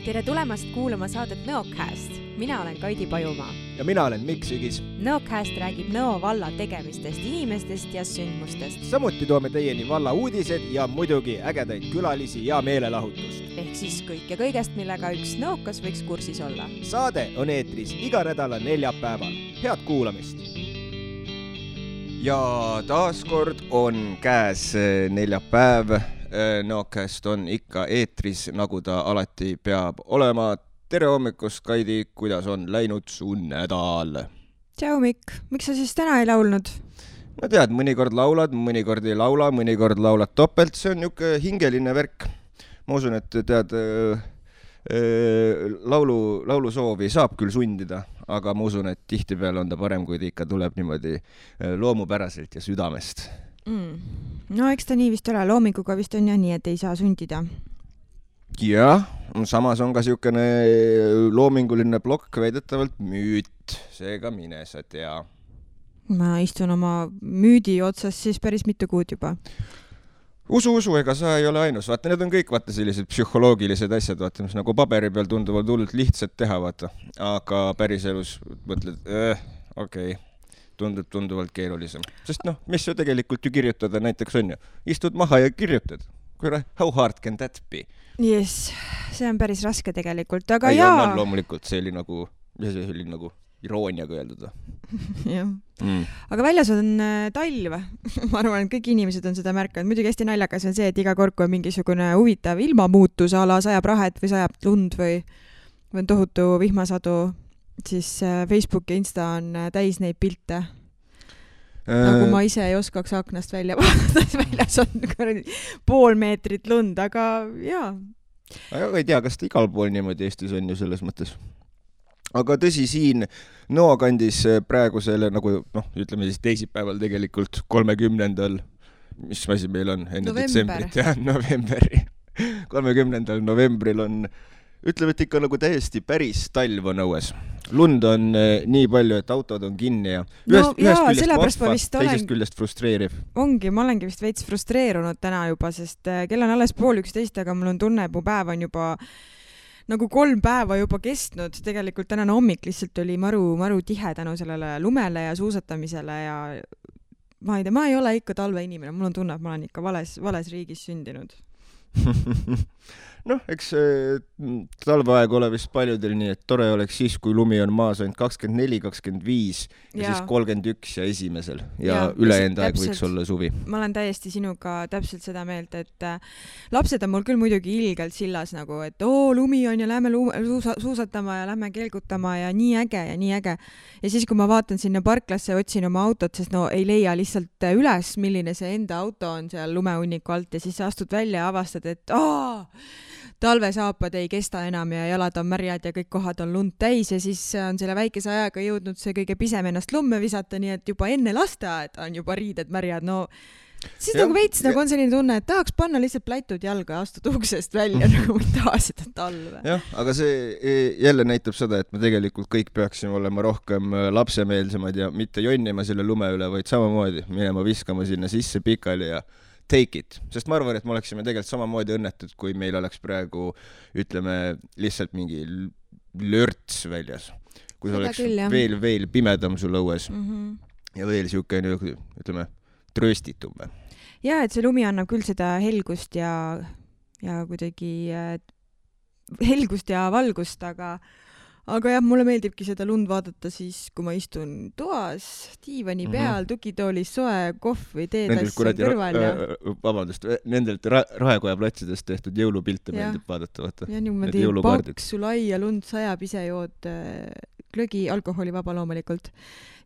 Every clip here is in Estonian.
Tere tulemast kuulama saadet Nõocast. Mina olen Kaidi Pajumaa. Ja mina olen Mikk Sügis. Nõocast räägib Nõo valla tegemistest, inimestest ja sündmustest. Samuti toome teieni valla uudised ja muidugi ägedaid külalisi ja meelelahutust. Ehk siis kõik ja kõigest, millega üks nõokas võiks kursis olla. Saade on eetris iga nädala neljapäeval. Head kuulamist! Ja taaskord on käes neljapäev. Nõocast on ikka eetris, nagu ta alati peab olema. Tere hommikust, Kaidi, kuidas on läinud su nädal? Tšau, Mikk. Miks sa siis täna ei laulnud? No tead, mõnikord laulad, mõnikord ei laula, mõnikord laulad topelt. See on niuke hingeline värk. Ma usun, et tead, laulusoovi saab küll sundida, aga ma usun, et tihtipeale on ta parem, kui ta ikka tuleb niimoodi loomupäraselt ja südamest. No eks ta nii vist ole, loominguga vist on ja nii, et ei saa sundida. Jah, samas on ka siukene loominguline plokk väidetavalt müüt, seega mine sa tea. Ma istun oma müüdi otsas siis päris mitu kuud juba. Usu, ega sa ei ole ainus. Vaata, need on kõik sellised psühholoogilised asjad, vaata, mis nagu paberi peal tunduvad hullult lihtsalt teha, vaata. Aga päris elus mõtled, okei. Tunduvalt keerulisem. Sest mis ju tegelikult ju kirjutada näiteks on ju. Istud maha ja kirjutad. How hard can that be? Yes, see on päris raske tegelikult, aga ei, jaa. On loomulikult, see oli nagu irooniaga öeldud. Jah. Aga väljas on talv. Ma arvan, et kõik inimesed on seda märkanud. Muidugi hästi naljakas on see, et iga kord, kui on mingisugune huvitav ilmamuutus, ala sajab rahet või sajab lund või on tohutu vihmasadu, siis Facebook ja Insta on täis neid pilte. Nagu ma ise ei oskaks aknast välja vaadata, väljas on pool meetrit lund, aga jaa. Aga ei tea, kas ta igal pool niimoodi Eestis on ju selles mõttes. Aga tõsi, siin Nõo kandis praegu selle, nagu ütleme siis teisipäeval tegelikult 30. Mis asi meil on enne detsembrit ja novembri. 30. novembril on ütleme, et ikka nagu täiesti päris talv on õues. Lund on nii palju, et autod on kinni ja ühest küljest vahva, teisest küljest frustreeriv. Ongi, ma olengi vist veits frustreerunud täna juba, sest kell on alles 10:30, aga mul on tunne, et mu päev on juba nagu 3 päeva juba kestnud. Tegelikult tänane hommik lihtsalt oli maru tihe tänu sellele lumele ja suusatamisele ja ma ei tea, ma ei ole ikka talveinimene. Mul on tunne, et ma olen ikka vales riigis sündinud. Eks talveaeg ole vist paljudel nii, et tore oleks siis, kui lumi on maas ainult 24, 25 ja siis 31 ja esimesel ja ülejäänud aeg võiks olla suvi. Ma olen täiesti sinuga täpselt seda meelt, et lapsed on mul küll muidugi ilgelt sillas nagu, et lumi on ja lähme suusatama ja lähme kelgutama ja nii äge ja nii äge. Ja siis, kui ma vaatan sinna parklasse, otsin oma autot, sest ei leia lihtsalt üles, milline see enda auto on seal lumehunniku alt ja siis sa astud välja ja avastad, et talvesaapad ei kesta enam ja jalad on märjad ja kõik kohad on lund täis ja siis on selle väikese ajaga jõudnud see kõige pisem ennast lumme visata, nii et juba enne lasteaed on juba riided märjad. Siis nagu veits nagu on selline tunne, et tahaks panna lihtsalt pläitud jalga ja astud uksest välja nagu ei taha seda talve. Jah, aga see jälle näitab seda, et me tegelikult kõik peaksime olema rohkem lapsemeelsemad ja mitte jonnima selle lume üle, vaid samamoodi minema viskama sinna sisse pikali ja take it, sest ma arvan, et me oleksime tegelikult samamoodi õnnetud, kui meil oleks praegu, ütleme, lihtsalt mingi lörts väljas. Kui oleks veel pimedam sul õues ja veel siukene, ütleme, trööstitum. Ja, et see lumi annab küll seda helgust ja kuidagi helgust ja valgust, aga jah, mulle meeldibki seda lund vaadata siis, kui ma istun toas, diivani peal, tukitoolis, soe, kohv või teetas kõrval. Vabandust, nendelt Raekoja platsidest tehtud jõulupilte meeldib vaadata. Ja niimoodi paksu laia lund sajab, ise jood glögi, alkoholivaba loomulikult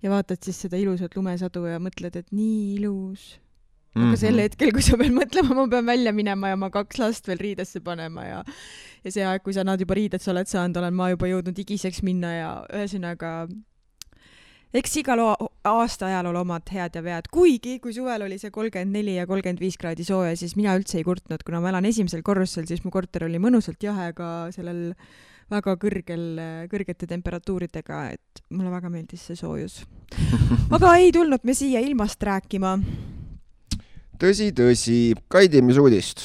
ja vaatad siis seda ilusat lumesadu ja mõtled, et nii ilus. Aga sel hetkel, kui sa pead mõtlema, ma pean välja minema ja ma 2 last veel riidesse panema ja see aeg, kui sa nad juba riidesse oled saanud, olen ma juba jõudnud igiseks minna ja ühesõnaga eks igal aasta ajal ole omad head ja vead. Kuigi, kui suvel oli see 34 ja 35 kraadi sooja, siis mina üldse ei kurtnud, kuna ma elan esimesel korrusel, siis mu korter oli mõnusalt jahe, aga sellel väga kõrgete temperatuuridega, et mulle väga meeldis see soojus. Aga ei tulnud me siia ilmast rääkima. Tõsi, Kaidi, mis uudist?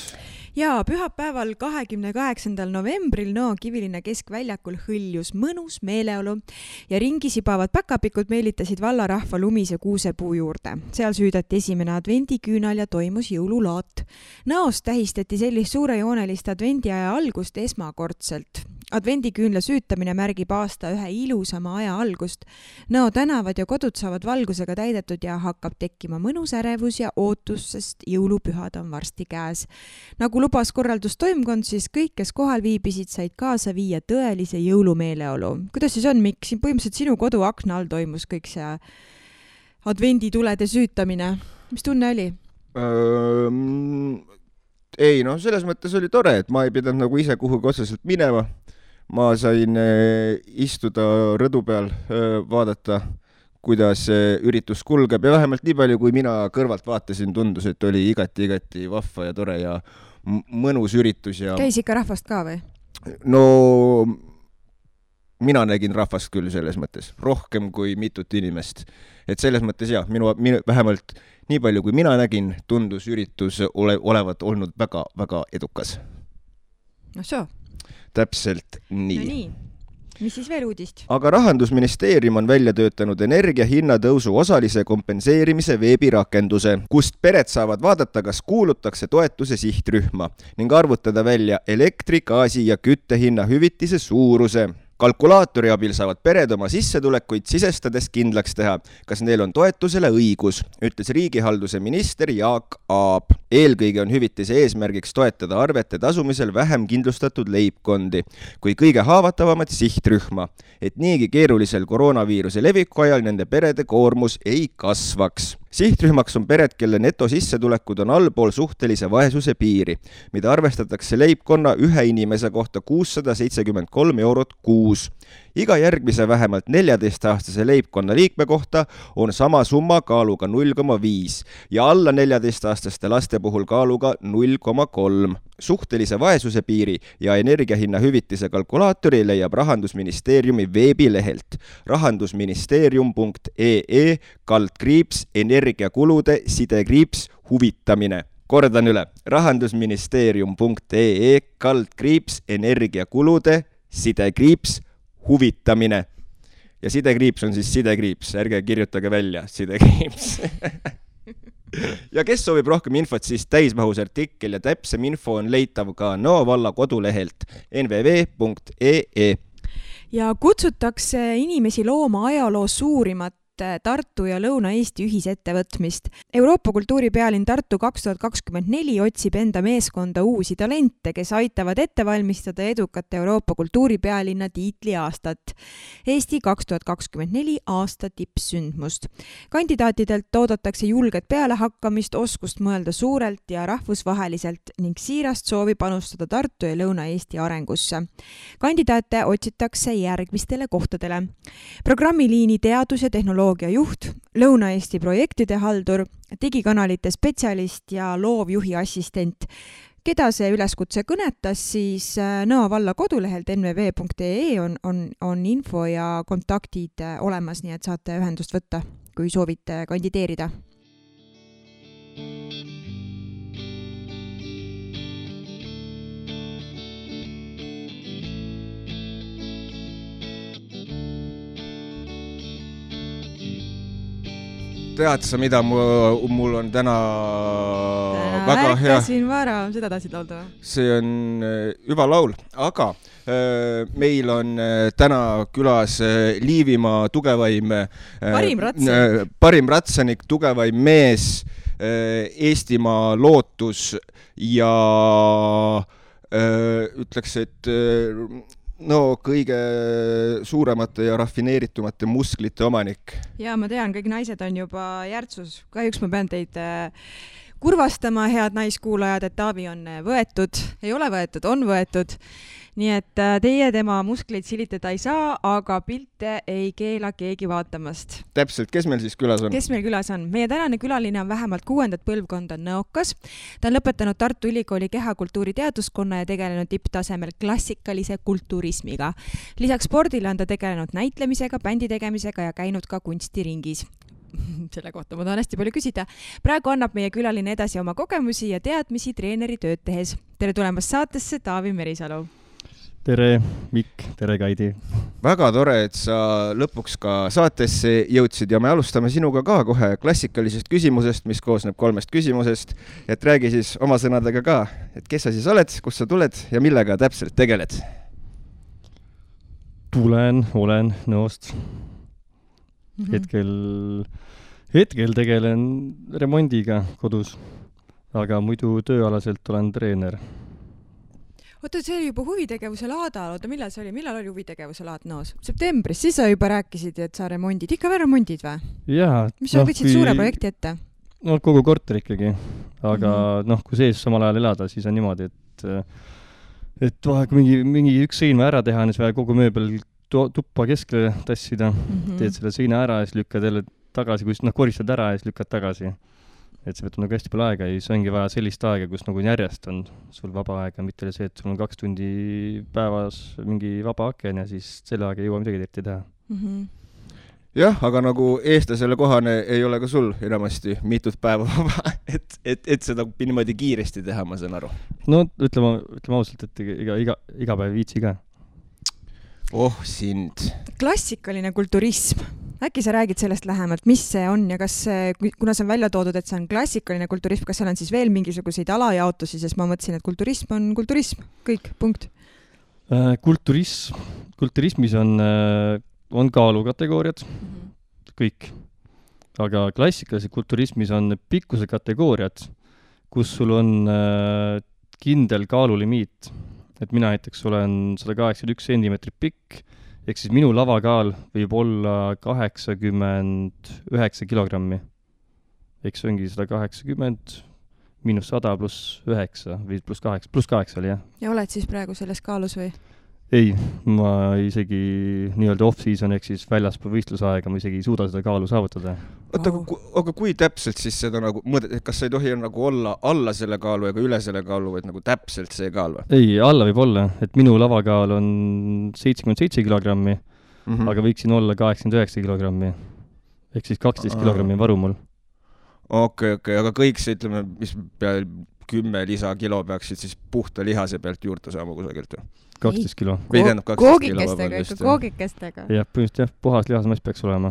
Jaa, pühapäeval 28. novembril Nõo Kivilinna keskväljakul hõljus mõnus meeleolu ja ringi sibavad päkapikud meelitasid vallarahva lumise kuusepuu juurde. Seal süüdati esimene advendiküünal ja toimus jõululaat. Nõos tähistati sellist suurejoonelist advendiaja algust esmakordselt. Advendiküünla süütamine märgib aasta ühe ilusama aja algust. Nõo tänavad ja kodud saavad valgusega täidetud ja hakkab tekkima mõnus ärevus ja ootus, sest jõulupühad on varsti käes. Nagu lubas korraldustoimkond, siis kõik, kes kohal viibisid, said kaasa viia tõelise jõulumeeleolu. Kuidas siis on, Mikk? Siin põhimõtteliselt sinu kodu akna all toimus kõik see advenditulede süütamine. Mis tunne oli? Ei, no selles mõttes oli tore, et ma ei pidanud nagu ise kuhugi otseselt minema. Ma sain istuda rõdu peal, vaadata, kuidas üritus kulgeb ja vähemalt nii palju, kui mina kõrvalt vaatasin, tundus, et oli igati vahva ja tore ja mõnus üritus. Ja... Käis ikka rahvast ka või? No mina nägin rahvast küll selles mõttes, rohkem kui mitut inimest. Et selles mõttes jah, minu vähemalt nii palju, kui mina nägin, tundus üritus olevat olnud väga edukas. No soo. Täpselt nii. No nii. Mis siis veel uudist? Aga Rahandusministeerium on välja töötanud energia hinnatõusu osalise kompenseerimise veebirakenduse, kust pered saavad vaadata, kas kuulutakse toetuse sihtrühma ning arvutada välja elektri, gaasi ja küttehinna hüvitise suuruse. Kalkulaatori abil saavad pered oma sissetulekuid sisestades kindlaks teha, kas neil on toetusele õigus, ütles riigihalduse minister Jaak Aab. Eelkõige on hüvitise eesmärgiks toetada arvete tasumisel vähem kindlustatud leibkondi kui kõige haavatavamat sihtrühma, et niigi keerulisel koroonaviiruse leviku ajal nende perede koormus ei kasvaks. Sihtrühmaks on pered, kelle netosissetulekud on allpool suhtelise vaesuse piiri, mida arvestatakse leibkonna ühe inimese kohta 673 eurot kuus. Iga järgmise vähemalt 14-aastase leibkonna liikme kohta on sama summa kaaluga 0,5 ja alla 14-aastaste laste puhul kaaluga 0,3. Suhtelise vaesuse piiri ja energiahinna hüvitise kalkulaatori leiab Rahandusministeeriumi veebilehelt rahandusministeerium.ee/energiakulude _huvitamine. Kordan üle, rahandusministeerium.ee/energiakulude _huvitamine. Ja sidekriips on siis sidekriips, ärge kirjutage välja sidekriips. Ja kes soovib rohkem infot, siis täismahus artikkel ja täpsem info on leitav ka Nõo valla kodulehelt nvv.ee. Ja kutsutakse inimesi looma ajaloo suurimat Tartu ja Lõuna-Eesti ühisettevõtmist. Euroopa kultuuripealinn Tartu 2024 otsib enda meeskonda uusi talente, kes aitavad ette valmistada edukat Euroopa kultuuripealinna tiitli aastat. Eesti 2024 aasta tippsündmust. Kandidaatidelt oodatakse julget pealehakkamist, oskust mõelda suurelt ja rahvusvaheliselt ning siirast soovi panustada Tartu ja Lõuna-Eesti arengusse. Kandidaate otsitakse järgmistele kohtadele. Programmiliini teadus- ja tehnoloogia juht, Lõuna-Eesti projektide haldur, digikanalite spetsialist ja loovjuhi assistent. Keda see üleskutse kõnetas, siis Nõo valla kodulehelt nvv.ee on info ja kontaktid olemas, nii et saate ühendust võtta, kui soovite kandideerida. Tead sa, mida mul on täna väga hea... Ärkasin vara, seda tahtsid laulda? See on hüva laul, aga meil on täna külas Liivimaa tugevaim parim ratsanik, tugevaim mees, Eestimaa lootus ja ütleks, et kõige suuremate ja rafineeritumate musklite omanik. Ja ma tean, kõik naised on juba järtsus. Kahjuks ma pean teid kurvastama, head naiskuulajad, et Taavi on võetud. Ei ole võetud, on võetud. nii et teie tema muskleid silitada ei saa, aga pilte ei keela keegi vaatamast. Täpselt, kes meil siis külas on? Kes meil külas on? Meie tänane külaline on vähemalt 6. põlvkonda nõokas. Ta on lõpetanud Tartu Ülikooli kehakultuuri teaduskonna ja tegelenud tipptasemel klassikalise kulturismiga. Lisaks spordile on ta tegelenud näitlemisega, bändi tegemisega ja käinud ka kunstiringis. Selle kohta ma tahan hästi palju küsida. Praegu annab meie külaline edasi oma kogemusi ja teadmisi treeneri tööd tehes. Tere tulemast saatesse, Taavi Merisalu. Tere, Mikk, tere, Kaidi. Väga tore, et sa lõpuks ka saatesse jõudsid ja me alustame sinuga ka kohe klassikalisest küsimusest, mis koosneb 3 küsimusest. Et räägi siis oma sõnadega ka, et kes sa siis oled, kust sa tuled ja millega täpselt tegeled? Olen Nõost. Hetkel tegelen remondiga kodus, aga muidu tööalaselt olen treener. Oota, see oli juba huvitegevuse laada. Millal oli huvitegevuse laad Nõos? Septembris, siis sa juba rääkisid, et sa remondid. Ikka veel remondid või? Jaa. Mis sa võtsid suure projekti ette? No kogu korter ikkagi. Aga kui sees samal ajal elada, siis on niimoodi, et kui mingi üks seina ära teha, siis vaja kogu mööbel tuppa keskle tassida. Teed selle seina ära ja siis lükkad jälle tagasi, kui koristad ära ja siis lükkad tagasi. Et see võtab nagu hästi palju aega ja siis ongi vaja sellist aega, kus nagu järjest on sul vaba aega, mitte see, et sul on 2 tundi päevas mingi vaba aken ja siis selle aega ei jõua midagi eriti teha. Jah, aga nagu eestlasele kohane ei ole ka sul enamasti mitut päeva vaba, et seda niimoodi kiiresti teha, ma saan aru. No ütleme ausalt, et iga päev viitsi ka. Sind. Klassikaline kulturism. Äkki sa räägid sellest lähemalt, mis see on ja kas, kuna see on välja toodud, et see on klassikaline kulturism, kas seal on siis veel mingisuguseid alajaotusi, sest ma mõtlesin, et kulturism on kulturism. Kõik, punkt. Kulturismis on kaalukategooriad, kõik. Aga klassikalises kulturismis on pikkuse kategooriad, kus sul on kindel kaalulimiit. Et mina näiteks olen 181 centimeetrit pikk, ehk siis minu lavakaal võib olla 89 kilogrammi. Ehk see ongi 180 miinus 100 pluss 9 või pluss 8 oli, jah. Ja oled siis praegu selles kaalus või? Ei, ma isegi nii-öelda off-season ehk siis väljaspool võistlusaega ma isegi ei suuda seda kaalu saavutada. Oota, aga kui täpselt siis seda nagu mõõdet, et kas sa ei tohi nagu olla alla selle kaalu ega üle selle kaalu, et nagu täpselt see kaal või? Ei, alla võib olla, et minu lavakaal on 77 kilogrammi, aga võiksin olla 89 kilogrammi. Ehk siis 12 kilogrammi varu mul. Okei, aga kõik see, ütleme, mis peal 10 lisakilo peaksid siis puhta lihase pealt juurde saama kusagilt või? 12 kilo. Koogikestega, ikka koogikestega. Jah, põhimõtteliselt jah, puhas lihasmass peaks olema.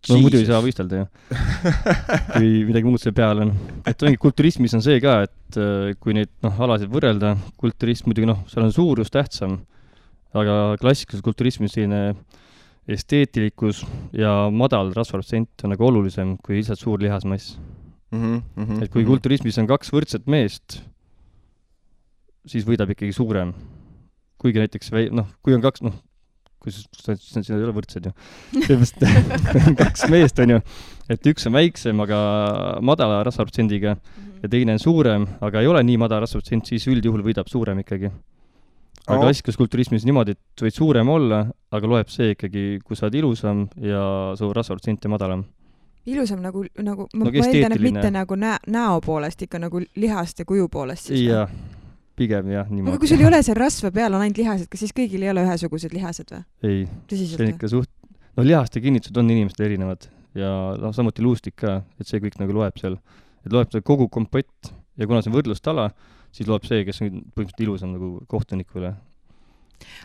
No muidu ei saa võistelda, jah. Kui midagi muud see peal on. Et ongi kulturismis on see ka, et kui neid alasid võrrelda, kulturism muidugi, seal on suurus tähtsam, aga klassikalises kulturismis selline esteetilikus ja madal rasvaprotsent on nagu olulisem kui lihtsalt suur lihasmass. Et kui kulturismis on 2 võrdset meest, siis võidab ikkagi suurem. Kuigi näiteks, kui on 2, kui siin ei ole võrdsed ju. 2 meest on ju, et üks on väiksem, aga madala rasvaprotsendiga ja teine on suurem, aga ei ole nii madala rasvaprotsent, siis üldjuhul võidab suurem ikkagi. Aga klassikalises kulturismis niimoodi, et võid suurem olla, aga loeb see ikkagi, kui sa oled ilusam ja su rasvaprotsent on madalam. Ilusam nagu ma eeldan, et mitte nagu näo poolest, ikka nagu lihast ja kuju poolest siis. Jah, pigem jah, niimoodi. Aga kui sul ei ole see rasva peal on ainult lihased, kas siis kõigil ei ole ühesugused lihased või? Ei, see on ikka lihaste kinnitused on inimestel erinevad ja samuti luustik ka, et see kõik nagu loeb seal. Et loeb see kogu kompott ja kuna see on võrdlustala, siis loeb see, kes on põhimõtteliselt ilusam nagu kohtunikule.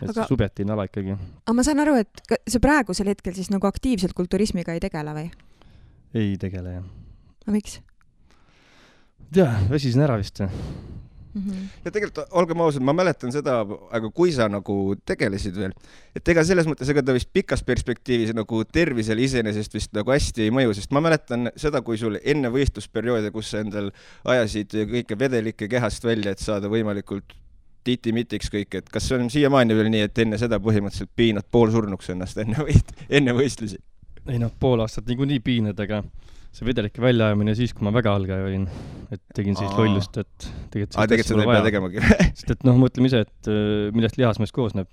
Et see subjektiivne ala ikkagi. Aga ma saan aru, et see praegusel hetkel siis nagu aktiivselt kulturismiga ei tegele või? Ei tegele, jah. Aga miks? Väsisin ära vist. Ja tegelikult, olgem ausad, ma mäletan seda, aga kui sa nagu tegelesid veel, et ega selles mõttes, ega ta vist pikas perspektiivis nagu tervisele iseenesest vist nagu hästi ei mõju, sest ma mäletan seda, kui sul enne võistlusperioode, kus sa endal ajasid kõike vedelikke kehast välja, et saada võimalikult titi-mitiks kõik, et kas see on siiamaani veel nii, et enne seda põhimõtteliselt piinad poolsurnuks ennast enne võistlusi? Ei pool aastat niikuinii piinad, aga see vedelike väljaajamine siis, kui ma väga algaja olin, et tegin siis lollust, et tegelikult seda ei pea tegemagi. Sest et mõtleme ise, et millest lihasmees koosneb.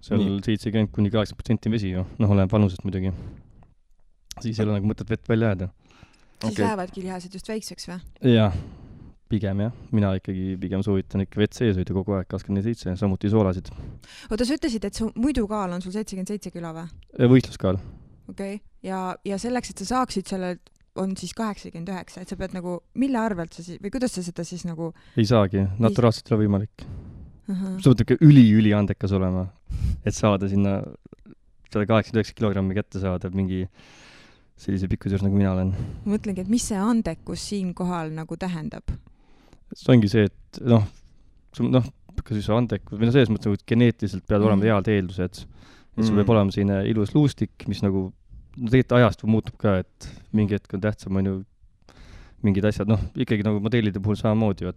Seal 70-80% vesi ju, oleneb vanusest muidugi. Siis ei ole nagu mõtet vett välja jääda. Siis lähevadki lihased just väikseks või? Jah, pigem jah. Mina ikkagi pigem soovitan ikka vett sees hoida kogu aeg 24/7, samuti soolasid. Oota, sa ütlesid, et su muidu kaal on sul 77 kilo või? Võistluskaal. Okei. Ja selleks, et sa saaksid selle, on siis 89, et sa pead nagu, mille arvelt sa siis, või kuidas sa seda siis nagu... Ei saagi, naturaalselt ei ole võimalik. Sa pead ikka üli andekas olema, et saada sinna 189 kilogrammi kätte saada mingi sellise pikkuse juures, nagu mina olen. Ma mõtlengi, et mis see andekus siin kohal nagu tähendab? See ongi see, et kas siis andekus, või selles mõttes, et geneetiliselt peavad olema head eeldused. Et sul peab olema selline ilus luustik, mis nagu tegelikult ajast muutub ka, et mingi hetk on tähtsam, on ju mingid asjad, ikkagi nagu modellide puhul samamoodi,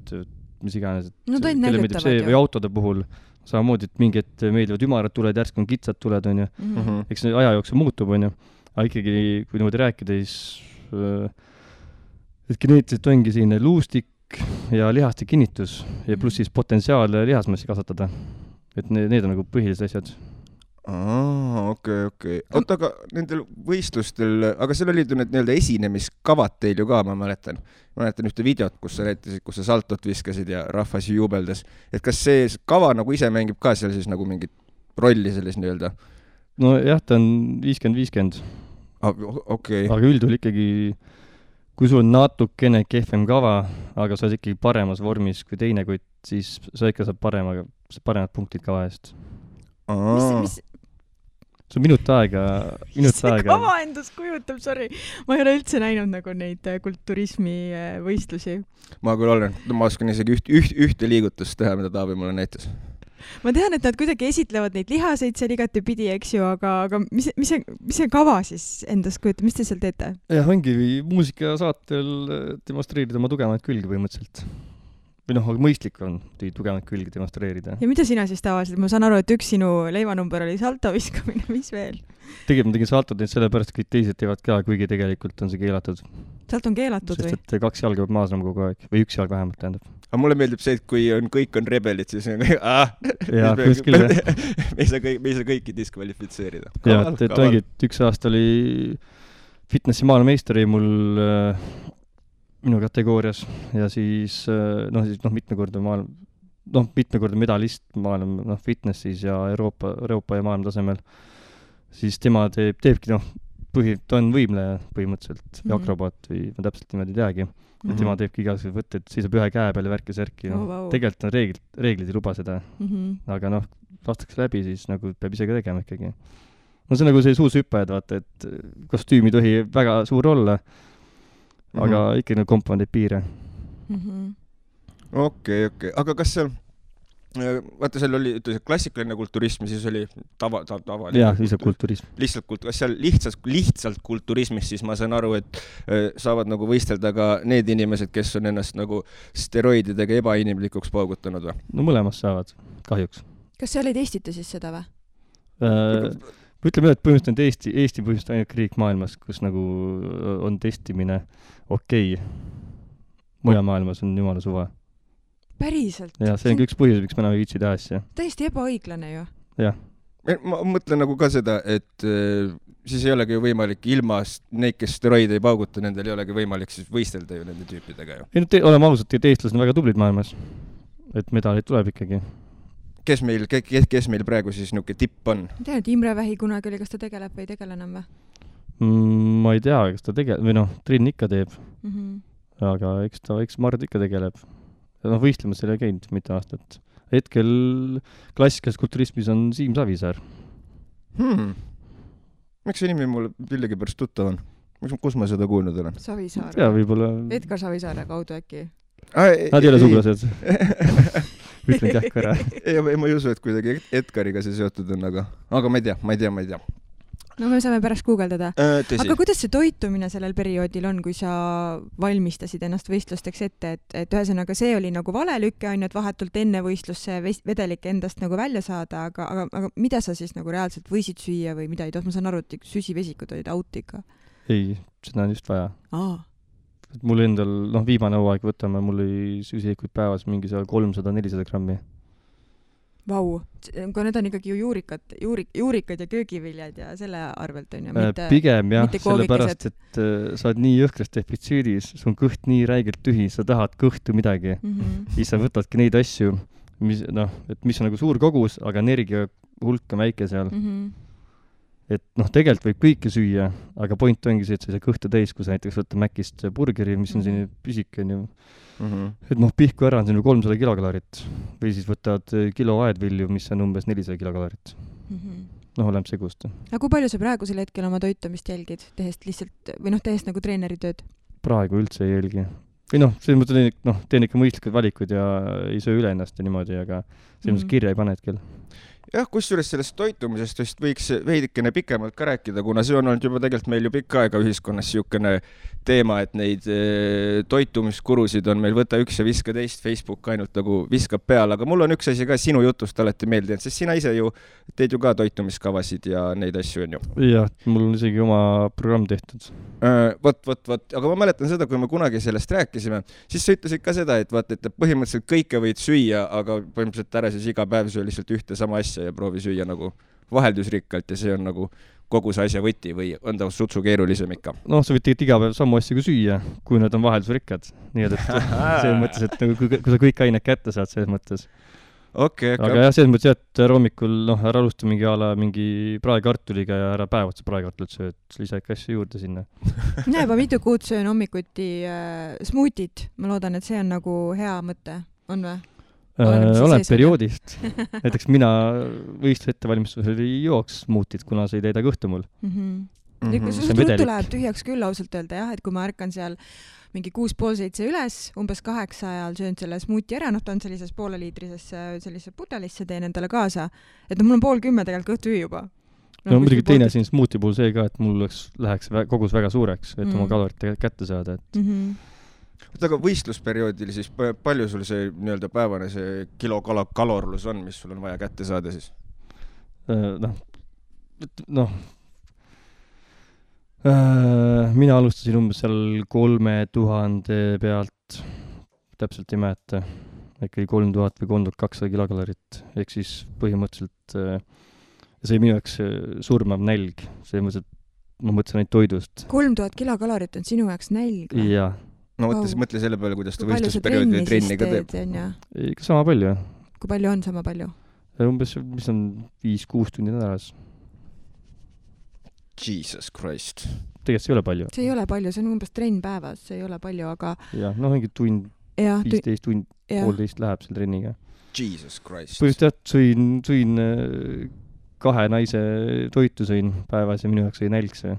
mis iganes, et kelle meeldib see või autode puhul samamoodi, et mingi hetk meeldivad ümarad tuled, järsku on kitsad tuled, on ju. Eks see aja jooksul muutub, on ju. Aga ikkagi, kui niimoodi rääkida, siis et geneetiliselt ongi selline luustik ja lihaste kinnitus ja pluss siis potentsiaal lihasmassi kasvatada. Et need on nagu põhilised asjad. Okei. Oota, aga nendel võistlustel, aga seal olid ju need nii-öelda esinemiskavad teil ju ka, ma mäletan ühte videot, kus sa näitasid, kus sa saltot viskasid ja rahvas jubeldas. Et kas see kava nagu ise mängib ka seal siis nagu mingit rolli selles nii-öelda? No jah, ta on 50-50. Okei. Aga üldjuhul ikkagi, kui sul on natukene kehvem kava, aga sa oled ikkagi paremas vormis kui teine, kuid siis sa ikka saad paremad punktid kava eest. See on minut aega. See kava endast kujutab, sorry. Ma ei ole üldse näinud nagu neid kulturismi võistlusi. Ma küll olen. Ma oskan isegi ühte liigutust teha, mida Taavi mulle näitas. Ma tean, et nad kuidagi esitlevad neid lihaseid seal igati pidi, eks ju, aga mis see kava siis endast kujutab? Mis te seal teete? Jah, ongi muusikasaatel demonstreerida oma tugevaid külgi põhimõtteliselt. Või aga mõistlik on tugevaid külgi demonstreerida. Ja mida sina siis tavaliselt? Ma saan aru, et üks sinu leivanumber oli salto viskamine, mis veel? Tegelikult ma tegin saltot neid sellepärast, kõik teised teevad ka, kuigi tegelikult on see keelatud. Salt on keelatud või? Sest et 2 jalga peab maasnama kogu aeg. Või 1 jalg vähemalt tähendab. Aga mulle meeldib see, et kui kõik on rebelid, siis on jaa, kuskil jah. Me ei saa kõiki diskvalifitseerida. Jaa, et ongi, et 1 aasta oli fitnessi maailmameistri mul minu kategoorias ja siis mitmekordne medalist maailma fitnessis ja Euroopa ja maailma tasemel. Siis tema teebki, ta on võimleja põhimõtteliselt või akrobaat või ma täpselt niimoodi ei teagi. Ja tema teebki igasugused võtted, seisab ühe käe peal ja värki särki. Tegelikult on reeglid ei luba seda. Aga lastakse läbi, siis nagu peab ise ka tegema ikkagi. See on nagu see suusüppajad, vaata, et kostüümi tohi väga suur olla. Aga ikka komponeid piire. Okei. Aga kas seal, vaata seal oli klassikaline kulturism, siis oli tavaline. Jah, lihtsalt kulturism. Kas seal lihtsalt kulturismis, siis ma saan aru, et saavad nagu võistelda ka need inimesed, kes on ennast nagu steroididega ebainimlikuks paugutanud või? No mõlemas saavad, kahjuks. Kas seal ei testita siis seda või? Ütleme, et põhimõtteliselt Eesti põhimõtteliselt ainult riik maailmas, kus nagu on testimine okei. Mujal maailmas on jumala suva. Päriselt? Ja see on üks põhjus, miks me enam ei viitsi teha asja. Täiesti ebaõiglane ju. Jah. Ma mõtlen nagu ka seda, et siis ei olegi ju võimalik ilma neid, kes steroide ei pauguta, nendel ei olegi võimalik siis võistelda ju nende tüüpidega ju. Oleme ausalt, et eestlased on väga tublid maailmas. Et medalid tuleb ikkagi. Kes meil praegu siis niuke tipp on? Ma tean, et Imre Vähi kunagi oli, kas ta tegeleb või ei tegele enam või? Ma ei tea, kas ta tegeleb, või Triin ikka teeb. Aga eks Mard ikka tegeleb. Võistlemas selle ei käinud mitte aastat. Hetkel klassikalises kulturismis on Siim Savisaar. Miks see nimi mulle millegi pärast tuttav on? Kus ma seda kuulnud olen? Savisaar. Ja võib-olla... Edgar Savisaare kaudu äkki. Nad ei ole sugulased. Ütlen kähku ära. Ma ei usu, et kuidagi Edgariga see seotud on, aga ma ei tea. No me saame pärast guugeldada. Aga kuidas see toitumine sellel perioodil on, kui sa valmistasid ennast võistlusteks ette, et ühesõnaga see oli nagu valelükke, ainult vahetult enne võistlusse vedelik endast nagu välja saada, aga mida sa siis nagu reaalselt võisid süüa või mida ei toht? Ma saan aru, et süsivesikud olid out ikka. ei, seda on just vaja. Aa. Mul endal, viimane hooaeg võtame, mul oli süsihikuid päevas mingi 300-400 grammi. Vau, aga need on ikkagi ju juurikad ja köögiviljad ja selle arvelt on ju, mitte pigem jah, mitte sellepärast, et sa oled nii jõhkras defitsiidis, sul on kõht nii räigelt tühi, sa tahad kõhtu midagi. Siis sa võtadki neid asju, mis on nagu suur kogus, aga energia hulk on väike seal. Et tegelikult võib kõike süüa, aga point ongi see, et sa ei saa kõhtu täis, kui sa näiteks võtta Mäkist burgeri, mis on siin pisik, on ju. Et pihku ära on siin 300 kilokalorit või siis võtad kilo aedvilju, mis on umbes 400 kilokalorit. Oleneb segust. Aga kui palju sa praegusel hetkel oma toitumist jälgid, tehes lihtsalt, või tehes nagu treeneri tööd? Praegu üldse ei jälgi. Või selles mõttes teen ikka mõistlikud valikud ja ei söö üle ennast ja niimoodi, aga selles mõttes kirja ei pane hetkel. Jah, kusjuures sellest toitumisest vist võiks veidikene pikemalt ka rääkida, kuna see on olnud juba tegelikult meil ju pikka aega ühiskonnas siukene teema, et neid toitumiskurusid on meil võta üks ja viska teist, Facebook ainult nagu viskab peale, aga mul on üks asi ka sinu jutust alati meeldinud, sest sina ise ju teed ju ka toitumiskavasid ja neid asju on ju. Jah, mul on isegi oma programm tehtud. Aga ma mäletan seda, kui me kunagi sellest rääkisime, siis sa ütlesid ka seda, et põhimõtteliselt kõike võid süüa, aga põhimõtteliselt ära siis iga päev söö lihtsalt ühte sama asja ja proovi süüa nagu vaheldusrikkalt ja see on nagu kogu see asja võti või on ta sutsu keerulisem ikka? Sa võid tegelikult iga päev samu asja kui süüa, kui nad on vaheldusrikkad. Nii et selles mõttes, et nagu, kui sa kõik ained kätte saad, selles mõttes. Okay. Aga jah, selles mõttes, et hommikul ära alusta mingi praekartuliga ja ära päev otsa praekartulit sööd, lisa ikka asju juurde sinna. Mina juba mitu kuud söön hommikuti smuutit. Ma loodan, et see on nagu hea mõte. On või? Olen perioodist. Näiteks mina võistluse ettevalmistusel ei jooks smuutit, kuna see ei täida kõhtu mul. See ruttu läheb tühjaks küll ausalt öelda, jah, et kui ma ärkan seal mingi 6:30 üles, umbes 8 ajal söön selle smuuti ära, ta on sellises pooleliitrisesse pudelisse, teen endale kaasa. Et mul on 9:30 tegelikult kõht tühi juba. Muidugi teine siin smuuti puhul see ka, et mul läheks kogus väga suureks, et oma kalorit kätte saada. Aga võistlusperioodil siis palju sul see nii-öelda päevane see kilokalorlus on, mis sul on vaja kätte saada siis? Mina alustasin umbes seal 3000 pealt, täpselt ei mäleta, ikkagi 3000 või 3200 kilokalorit, ehk siis põhimõtteliselt see minu jaoks surmav nälg, see mõttes, et ma mõtlesin ainult toidust. 3000 kilokalorit on sinu jaoks nälg? Jah. No mõtle selle peale, kuidas ta võistlusperioodi trenni ka teeb. Ikka sama palju. Kui palju on sama palju? Umbes, mis on 5-6 tundi nädalas. Jesus Christ. Tegelikult see ei ole palju. See ei ole palju, see on umbes trenn päevas, see ei ole palju, aga... Jah, mingi tund, 15 tund, 1,5 läheb selle trenniga. Jesus Christ. Põhimõtteliselt sõin 2 naise toitu sõin päevas ja minu jaoks ei nälg see.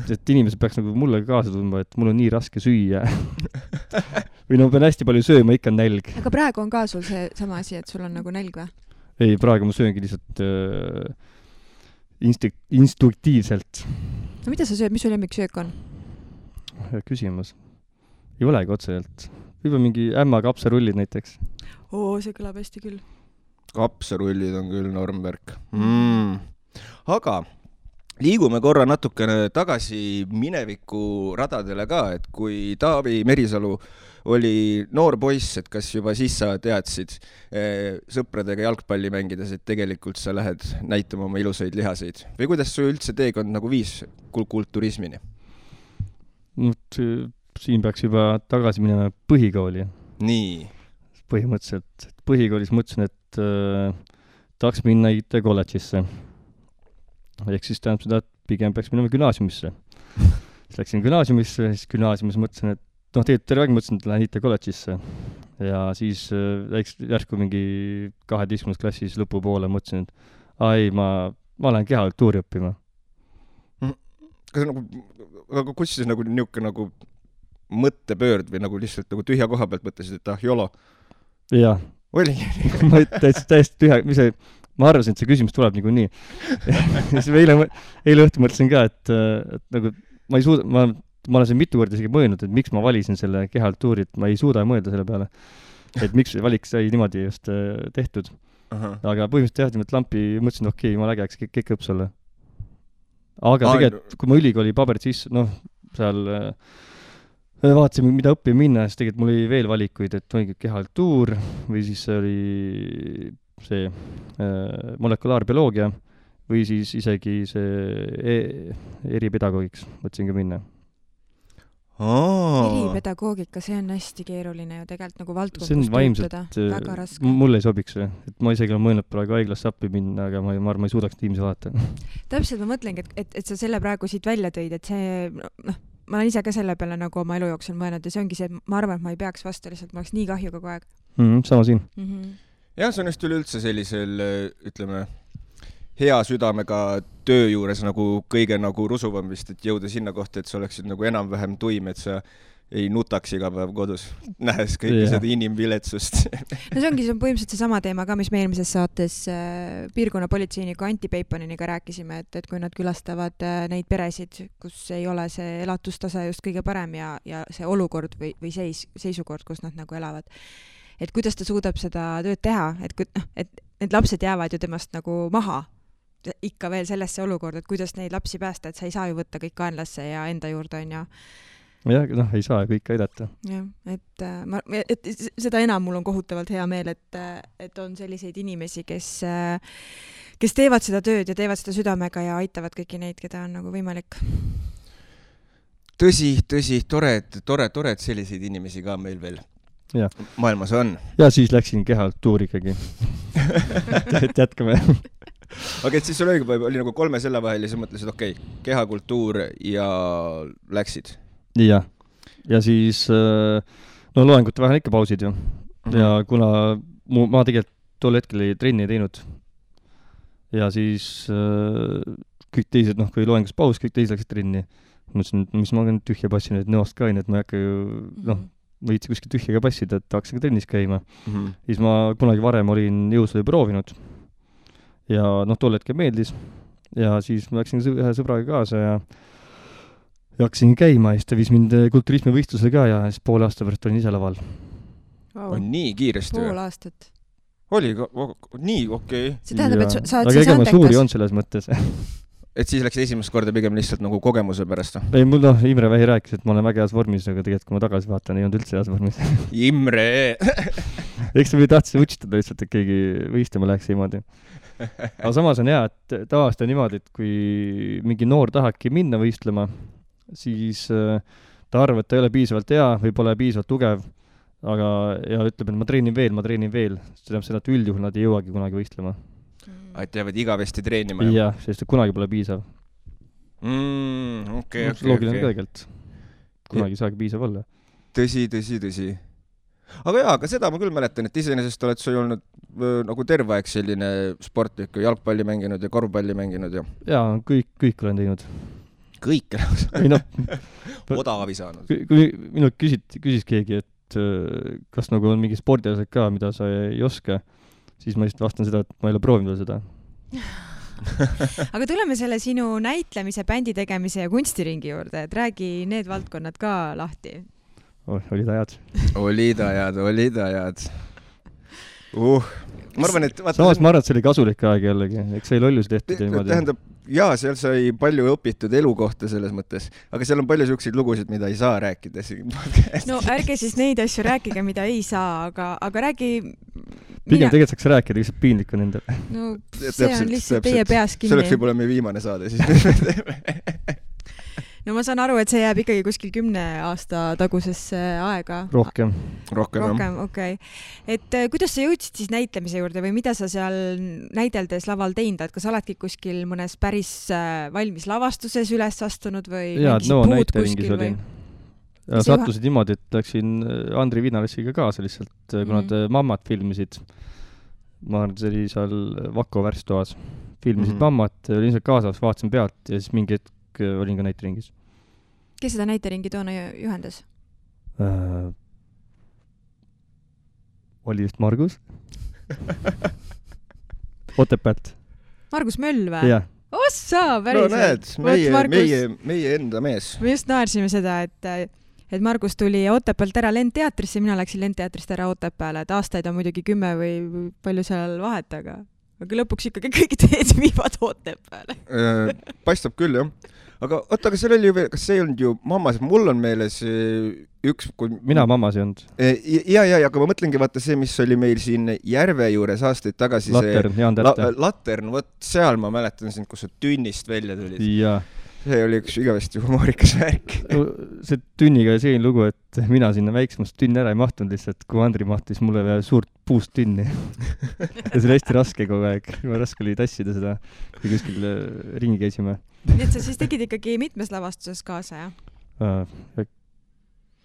et inimesed peaks nagu mulle kaasa tundma, et mul on nii raske süüa. Või pean hästi palju sööma, ikka on nälg. Aga praegu on ka sul see sama asi, et sul on nagu nälg või? Ei, praegu ma sööngi lihtsalt instruktiivselt. No mida sa sööd, mis sul lemmiksöök on? Hea küsimus. Ei olegi otseselt. Võib-olla mingi ämma kapsarullid näiteks. See kõlab hästi küll. Kapsarullid on küll normvärk. Aga liigume korra natukene tagasi mineviku radadele ka, et kui Taavi Merisalu oli noor poiss, et kas juba siis sa teadsid sõpradega jalgpalli mängides, et tegelikult sa lähed näitama oma ilusaid lihaseid? Või kuidas su üldse teekond nagu viis kulturismini? Siin peaks juba tagasi minema põhikooli. Nii. Põhimõtteliselt. Põhikoolis mõtlesin, et tahaks minna IT kolledžisse. Ehk siis tähendab seda, et pigem peaks minema gümnaasiumisse. Siis läksin gümnaasiumisse, siis gümnaasiumis mõtlesin, et terve aeg mõtlesin, et lähen IT kolledžisse. Ja siis järsku mingi 12. klassis lõpupoole mõtlesin, et ma lähen kehakultuuri õppima. Aga kus siis niuke nagu mõttepöörd või nagu lihtsalt nagu tühja koha pealt mõtlesid, et jolo? Jah. Oli? Ma täiesti tühja, ma arvasin, et see küsimus tuleb nagu nii. Eile õhtu mõtlesin ka, et nagu ma ei suuda, ma olen siin mitu korda isegi mõelnud, et miks ma valisin selle kehakultuuri, et ma ei suuda mõelda selle peale. Et miks see valik sai niimoodi just tehtud. Aga põhimõtteliselt jah, lampi mõtlesin, okei, ma lägeks kõik õps olla. aga tegelikult, kui ma ülikooli paberid sisse, seal vaatasime, mida õppima minna, siis tegelikult mul oli veel valikuid, et oligi kehakultuur või siis oli see molekulaarbioloogia või siis isegi see eripedagoogiks mõtlesin ka minna. Eripedagoogika, see on hästi keeruline ju tegelikult nagu valdkond, kus töötada. Väga raske. Mulle ei sobiks see. Et ma isegi olen mõelnud praegu haiglasse appi minna, aga ma arvan, ma ei suudaks tiimsi vaadata. Täpselt ma mõtlengi, et sa selle praegu siit välja tõid, et see, ma olen ise ka selle peale nagu oma elu jooksul mõelnud ja see ongi see, et ma arvan, et ma ei peaks vastu lihtsalt, ma oleks nii kahju kogu aeg. Sama siin. Ja see on just üleüldse sellisel, ütleme, hea südamega töö juures nagu kõige nagu rusuvam vist, et jõuda sinna kohta, et sa oleksid nagu enam-vähem tuim, et sa ei nutaks iga päev kodus, nähes kõike seda inimviletsust. No see ongi põhimõtteliselt see sama teema ka, mis me eelmises saates piirkonnapolitseiniku Anti Peiponiniga rääkisime, et kui nad külastavad neid peresid, kus ei ole see elatustase just kõige parem ja see olukord või seisukord, kus nad nagu elavad. Et kuidas ta suudab seda tööd teha, et need lapsed jäävad ju temast nagu maha ikka veel sellesse olukorda, et kuidas neid lapsi päästa, et sa ei saa ju võtta kõik kaenlasse ja enda juurde on ja ei saa kõike aidata. Jah, et seda enam mul on kohutavalt hea meel, et on selliseid inimesi, kes teevad seda tööd ja teevad seda südamega ja aitavad kõiki neid, keda on nagu võimalik. Tõsi, tore, et selliseid inimesi ka meil veel maailmas on. Ja siis läksin kehakultuuri ikkagi. Et jätkame. Aga et siis sul oli nagu 3 selle vahel ja sa mõtlesid, kehakultuur ja läksid. Ja siis loengute vahel ikka pausid ju. Ja kuna ma tegelikult tol hetkel ei trenni teinud ja siis kõik teised, kui loengus paus, kõik teised läksid trenni. Mõtlesin, mis ma olen tühja passinud, et nõost ka et ma ei hakka ju, võitsi kuskil tühjaga passida, et hakkasin ka trennis käima. Siis ma kunagi varem olin jõusvõi proovinud. Ja tol hetkel meeldis ja siis ma läksin ühe sõbraga kaasa ja hakkasin käima ja siis ta viis mind kulturismi võistlusele ka ja siis poole aasta pärast olin ise laval. On nii kiiresti? Pool aastat. Oli nii okei. See tähendab, et sa oled siis andekas. Aga suuri on selles mõttes. Et siis läks esimest korda pigem lihtsalt nagu kogemuse pärast? Ei, mul Imre Vähi rääkis, et ma olen väga heas vormis, aga tegelikult kui ma tagasi vaatan, ei olnud üldse heas vormis. Imre! Eks ta või tahtsin utsitada lihtsalt, et keegi võistlema läheks niimoodi. Aga samas on hea, et tavaliselt on niimoodi, et kui mingi noor tahakki minna võistlema, siis ta arvab, et ta ei ole piisavalt hea või pole piisavalt tugev, aga ja ütleb, et ma treenin veel. See tähendab seda, et üldjuhul nad ei jõuagi kunagi võistlema. Et jäävad igavesti treenima? Jah, sest kunagi pole piisav. Okei. Loogiline kõigelt. Kunagi saagi piisav olla. Tõsi. Aga seda ma küll mäletan, et iseenesest oled sa ju olnud nagu terve aeg selline sportlik, jalgpalli mänginud ja korvpalli mänginud ja... Jaa, kõik olen teinud. Kõik Odavi saanud. Kui minult küsis keegi, et kas nagu on mingi spordiasjad ka, mida sa ei oska, siis ma lihtsalt vastan seda, et ma ei ole proovinud seda. Aga tuleme selle sinu näitlemise, bändi tegemise ja kunstiringi juurde, et räägi need valdkonnad ka lahti. Olid ajad. Olid ajad. Ma arvan, et... Samas ma arvan, et see oli kasulik aeg jällegi. Eks see lollus tehtud niimoodi. Tähendab, seal sai palju õpitud elu kohta selles mõttes, aga seal on palju selliseid lugusid, mida ei saa rääkida siin. No ärge siis neid asju rääkige, mida ei saa, aga räägi... Pigem tegelikult saaks rääkida, lihtsalt piinlik on endale. No see on lihtsalt teie peas kinni. See oleks võib-olla meie viimane saade siis. No ma saan aru, et see jääb ikkagi kuskil 10 aasta tagusesse aega. Rohkem, okei. Et kuidas sa jõudsid siis näitlemise juurde või mida sa seal näideldes laval teinud? Et kas oledki kuskil mõnes päris valmis lavastuses üles astunud või mingis puud kuskil või? Ja sattusid niimoodi, et läksin Andri Viinalessiga kaasa lihtsalt, kuna nad Mammat filmisid. Ma arvan, see oli seal Vako värstoas. Filmisid Mammat, olin seal kaasas, vaatasin pealt ja siis mingi hetk olin ka näiteringis. Kes seda näiteringi toona juhendas? Oli vist Margus. Otepäält. Margus Möll või? Jah. Ossa, päriselt. No näed, meie enda mees. Me just naersime seda, et Margus tuli Otepäält ära Lendteatrisse, mina läksin Lendteatrist ära Otepääle, et aastaid on muidugi 10 või palju seal vahet, aga aga lõpuks ikkagi kõik teed viivad Otepääle. Paistab küll, jah. Aga oota, aga seal oli ju veel, kas see ei olnud ju mammas, mul on meeles üks... Mina mammas ei olnud. Ja, aga ma mõtlengi, vaata see, mis oli meil siin Järve juures aastaid tagasi. Latern, Jaan Tähte. Latern, vot seal ma mäletan sind, kus sa tünnist välja tulid. Jaa. See oli üks igavesti humoorikas värk. See tünniga oli selline lugu, et mina sinna väiksemast tünni ära ei mahtunud lihtsalt, kui Andri mahtis mulle veel suurt puust tünni. Ja see oli hästi raske kogu aeg. Raske oli tassida seda, kui kuskil ringi käisime. Nii et sa siis tegid ikkagi mitmes lavastuses kaasa, jah?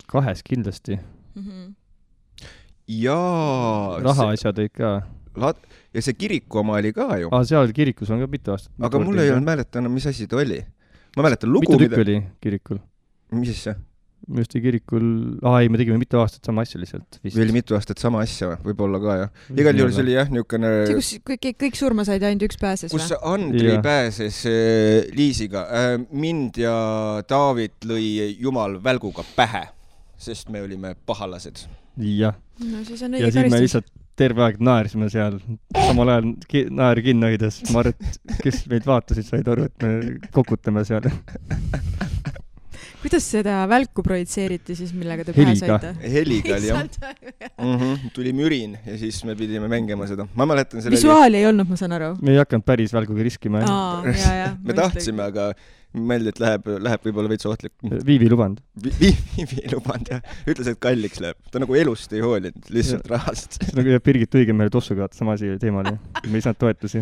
2 kindlasti. Jaa. Rahaasjad olid ka. Ja see kiriku oma oli ka ju. Seal kirikus on ka mitu aastat. Aga mul ei olnud mäletanud, mis asi ta oli. Ma mäletan lugu, mitu tükk oli kirikul? Mis siis see? Minu arust kirikul... me tegime mitu aastat sama asja lihtsalt. Või oli mitu aastat sama asja, võib-olla ka, jah. Igal juhul see oli, jah, niisugune... See, kus kõik surma said, ainult üks pääses, kus Andri pääses Liisiga. Mind ja David lõi jumal välguga pähe, sest me olime pahalased. Jah. No siis on õige ja siis me lihtsalt terve aeg naersime seal. Samal ajal naeri kinno hoides. Ma arvan, et kes meid vaatasid, said aru, et me kokutame seal. Kuidas seda välku projitseeriti siis, millega te pähe saite? Heliga oli, jah. Tuli mürin ja siis me pidime mängima seda. Ma mäletan selle... Visuaali ei olnud, ma saan aru. Me ei hakanud päris välguga riskima. Me tahtsime, aga mõeldi, et läheb võib-olla veits ohtlik. Viivi luband. Viivi luband, jah. Ütles, et kalliks läheb. Ta nagu elust ei hoolinud, lihtsalt rahast. See nagu Birgit Õigemäele tossuga sama asi teema oli. Me ei saanud toetusi.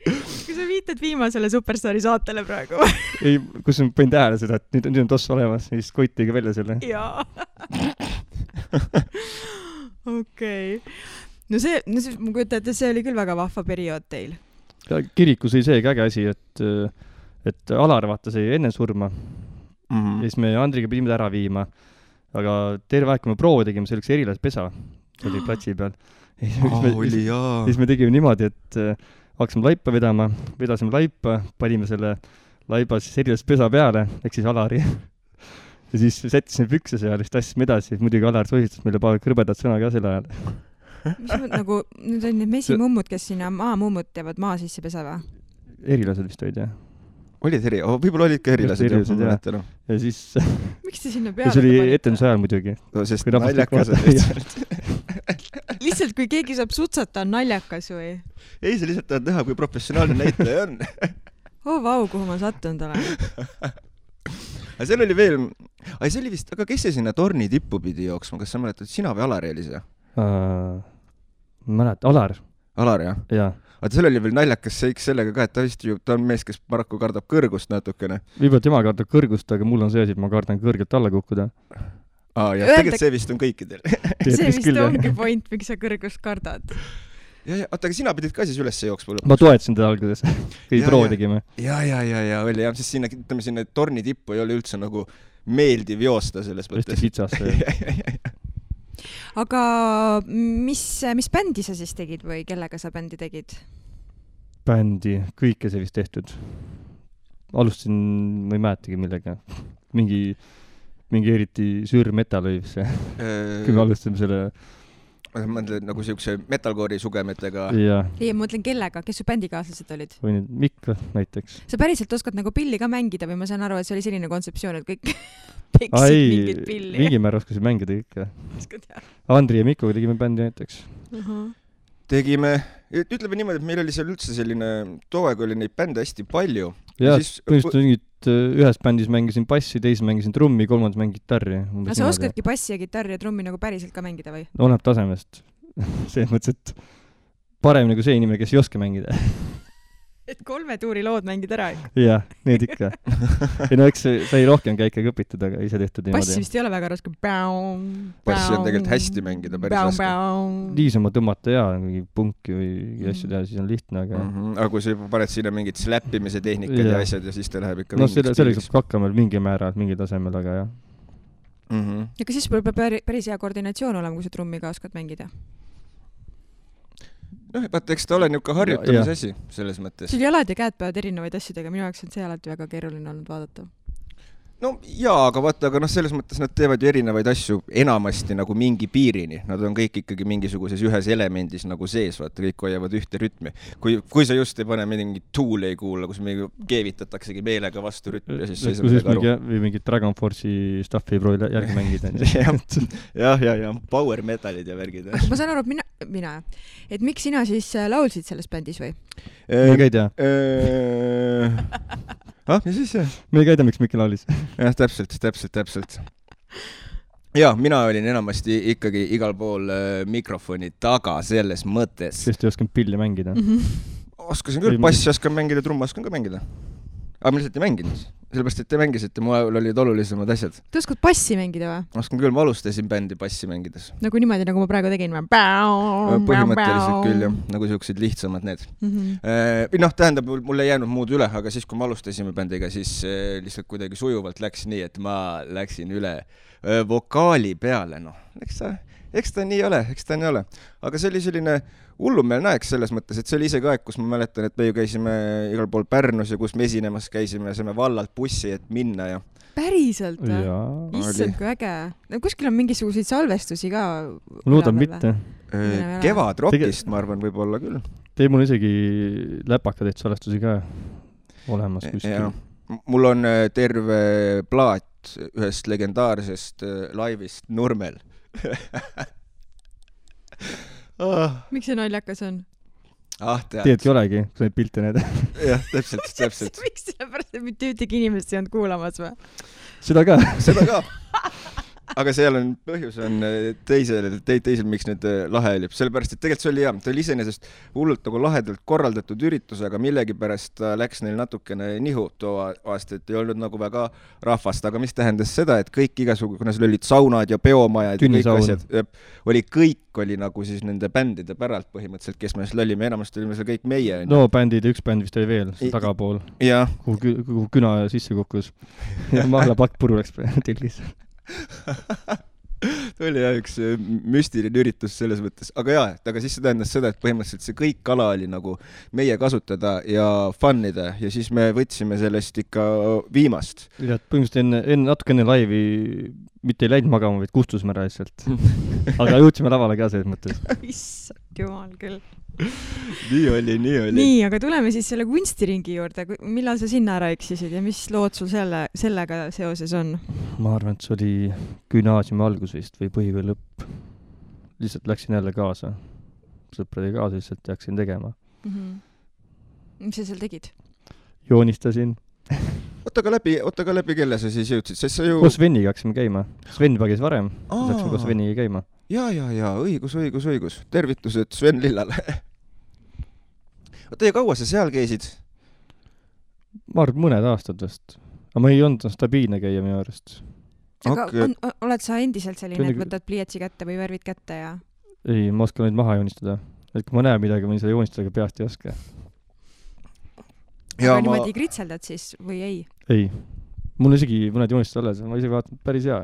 Kui sa viitad viimasele Superstaari saatele praegu? Ei, kus ma panin tähele seda, et nüüd on tossu olemas, siis Koit tegi välja selle. Jaa. Okei. No see, ma kujutan, et see oli küll väga vahva periood teil. Kirikus oli see äge asi, et Alar vaata sai enne surma. Ja siis me Andriga pidime ära viima. Aga terve aeg, kui me proovi tegime, see oli üks erilaspesa. See oli platsi peal. Siis me tegime niimoodi, et hakkasime laipa vedama, vedasime laipa, panime selle laiba siis erilaspesa peale, ehk siis Alari. Ja siis sättisime pükse seal, siis tassime edasi. Muidugi Alar sohistas meile paar krõbedat sõna ka selle ajal. Mis nagu, nüüd on need mesimummud, kes sinna maamummud teevad maa sisse pesa või? Erilased vist olid, jah. Olid võib-olla olid ka erilased, jah. Ja siis... Miks te sinna peale? Ja see oli etenduse ajal muidugi. No, sest naljakas on lihtsalt. Lihtsalt, kui keegi saab sutsata, on naljakas või? Ei, see lihtsalt tahad näha, kui professionaalne näitaja on. Vau, kuhu ma sattunud olen. Aga seal oli veel... see oli vist... Aga kes see sinna torni tippu pidi jooksma? Kas sa mäletad, sina või Alar oli see? Mälet, Alar. Alar, jah? Jaa. Aga seal oli veel naljakas seiks sellega ka, et ta on mees, kes paraku kardab kõrgust natukene. Võib-olla tema kardab kõrgust, aga mul on see asi, et ma kardan kõrgelt alla kukkuda. Ja tegelikult see vist on kõikidel. See vist ongi point, miks sa kõrgust kardad. Aga sina pidid ka siis üles jooksma lõpuks. Ma toetasin teda alguses, kui proo tegime. Ja, oli jah, sest sinna torni tippu ei ole üldse nagu meeldiv joosta selles mõttes. Hästi kitsast. Aga mis bändi sa siis tegid või kellega sa bändi tegid? Bändi, kõike see vist tehtud. Alustasin, ma ei mäletagi millega. Mingi eriti süür metal oli see. Kui me alustasime selle... Ma mõtlen nagu siukse metalcore'i sugemetega. Ei, ma mõtlen kellega, kes su bändikaaslased olid? Või nüüd Mikk näiteks. Sa päriselt oskad nagu pilli ka mängida või ma saan aru, et see oli selline kontseptsioon, et kõik peksid mingit pilli. Mingi määr oskasid mängida ikka. Andri ja Mikkoga tegime bändi näiteks. Tegime, ütleme niimoodi, et meil oli seal üldse selline, too aeg oli neid bände hästi palju. Ja põhimõtteliselt ühes bändis mängisin bassi, teises mängisin trummi, kolmandas mängin gitarri. Aga sa oskadki bassi ja gitarri ja trummi nagu päriselt ka mängida või? Oleneb tasemest. See mõttes, et paremini kui see inimene, kes ei oska mängida. Et 3 tuuri lood mängid ära ikka. Jah, need ikka. Ja no eks sai rohkem käike õpitud, aga ise tehtud niimoodi. Bassi vist ei ole väga raske. Bassi on tegelikult hästi mängida, päris raske. Niisama tõmmata ja mingi punki või asju teha, siis on lihtne, aga... Aga kui sa paned sinna mingid släppimise tehnikad ja asjad ja siis ta läheb ikka... No selleks saab hakkama mingi määral, mingi tasemel, aga jah. Ja siis peab päris hea koordinatsioon olema, kui sa trummi ka oskad mängida. Vaata, eks ta ole niuka harjutamise asi selles mõttes. Sul jalad ja käed peavad erinevaid asju tegema, minu jaoks on see alati väga keeruline olnud vaadata. no jaa, aga vaata, aga selles mõttes nad teevad ju erinevaid asju enamasti nagu mingi piirini. Nad on kõik ikkagi mingisuguses ühes elemendis nagu sees, vaata, kõik hoiavad ühte rütmi. Kui sa just ei pane mingit Tool ei kuula, kus mingi keevitataksegi meelega vastu rütmi ja siis sa ei saa midagi aru. Või mingit Dragon Force'i staffi ei proovi järgi mängida. ja, power metalid ja värgid. Ma saan aru, et mina. Et miks sina siis laulsid selles bändis või? Me ei tea. Ja siis me ei käida, miks Mikki laulis. Jah, täpselt. Ja, mina olin enamasti ikkagi igal pool mikrofoni taga selles mõttes. Sest ei oskan pilli mängida. Oskasin küll, bassi oskan mängida, trumma oskan ka mängida. Aga ma lihtsalt ei mänginud. Sellepärast, et te mängisite, mul olid olulisemad asjad. Te oskad bassi mängida või? Oskan küll, ma alustasin bändi bassi mängides. Nagu niimoodi, nagu ma praegu tegin. Põhimõtteliselt küll, jah. Nagu siuksed lihtsamad need. Tähendab, mul ei jäänud muud üle, aga siis, kui me alustasime bändiga, siis lihtsalt kuidagi sujuvalt läks nii, et ma läksin üle vokaali peale. Eks ta nii ole. Aga see oli selline hullumeelne aeg selles mõttes, et see oli isegi aeg, kus ma mäletan, et me ju käisime igal pool Pärnus ja kus me esinemas käisime ja saime vallalt bussi, et minna ja... Päriselt või? Issand, kui äge. Kuskil on mingisuguseid salvestusi ka? Loodan mitte. Kevad rockist, ma arvan, võib olla küll. Teil mul isegi läpakadeid salvestusi ka olemas kuskil. Mul on terve plaat ühest legendaarsest laivist Nurmel. Miks see naljakas on? Teedki olegi, kui sa neid pilte näed. Jah, täpselt. Miks sellepärast, et mitte ühtegi inimest ei olnud kuulamas või? Seda ka. Aga seal on põhjus on teisel miks nüüd lahe oli. Sellepärast, et tegelikult see oli hea. Ta oli iseenesest hullult nagu lahedalt korraldatud üritus, aga millegipärast läks neil natukene nihu too aasta, et ei olnud nagu väga rahvast. Aga mis tähendas seda, et kõik igasugu, kuna seal olid saunad ja peomajad ja kõik asjad, kõik oli nagu siis nende bändide päralt põhimõtteliselt, kes me seal olime. Enamasti olime seal kõik meie. No bändid ja üks bänd vist oli veel, tagapool. Kuhu küna sisse kukkus. Ja mahla pakk puru läks tilgis. oli üks müstiline üritus selles mõttes, aga siis see tähendas seda, et põhimõtteliselt see kõik kala oli nagu meie kasutada ja fannida ja siis me võtsime sellest ikka viimast. Ja põhimõtteliselt natuke enne laivi mitte ei läinud magama, vaid kustusime ära lihtsalt. Aga jõudsime lavale ka selles mõttes. Issand jumal küll. Nii oli. Nii, aga tuleme siis selle kunstiringi juurde. Millal sa sinna ära eksisid ja mis lood sul sellega seoses on? Ma arvan, et see oli gümnaasiumi algus vist või põhikooli lõpp. Lihtsalt läksin jälle kaasa. Sõprade kaasa lihtsalt jaksin tegema. Mis sa seal tegid? Joonistasin. Oota ka läbi kelle sa siis jõudsid? Koos Sveniga haksime käima. Sven pagis varem. Läksime koos Sveniga käima. Ja, õigus. Tervitused Sven Lillale. Oota, ja kaua sa seal käisid? Ma arvan, mõned aastad vast. Aga ma ei olnud stabiilne käia minu arust. Aga oled sa endiselt selline, et võtad pliiatsi kätte või värvid kätte ja... Ei, ma oskan neid maha joonistada. Et kui ma näen midagi, ma seda joonistada, aga peast ei oska. Aga niimoodi kritseldad siis või ei? Ei. Mul isegi mõned joonistused alles, ma isegi vaatan päris hea.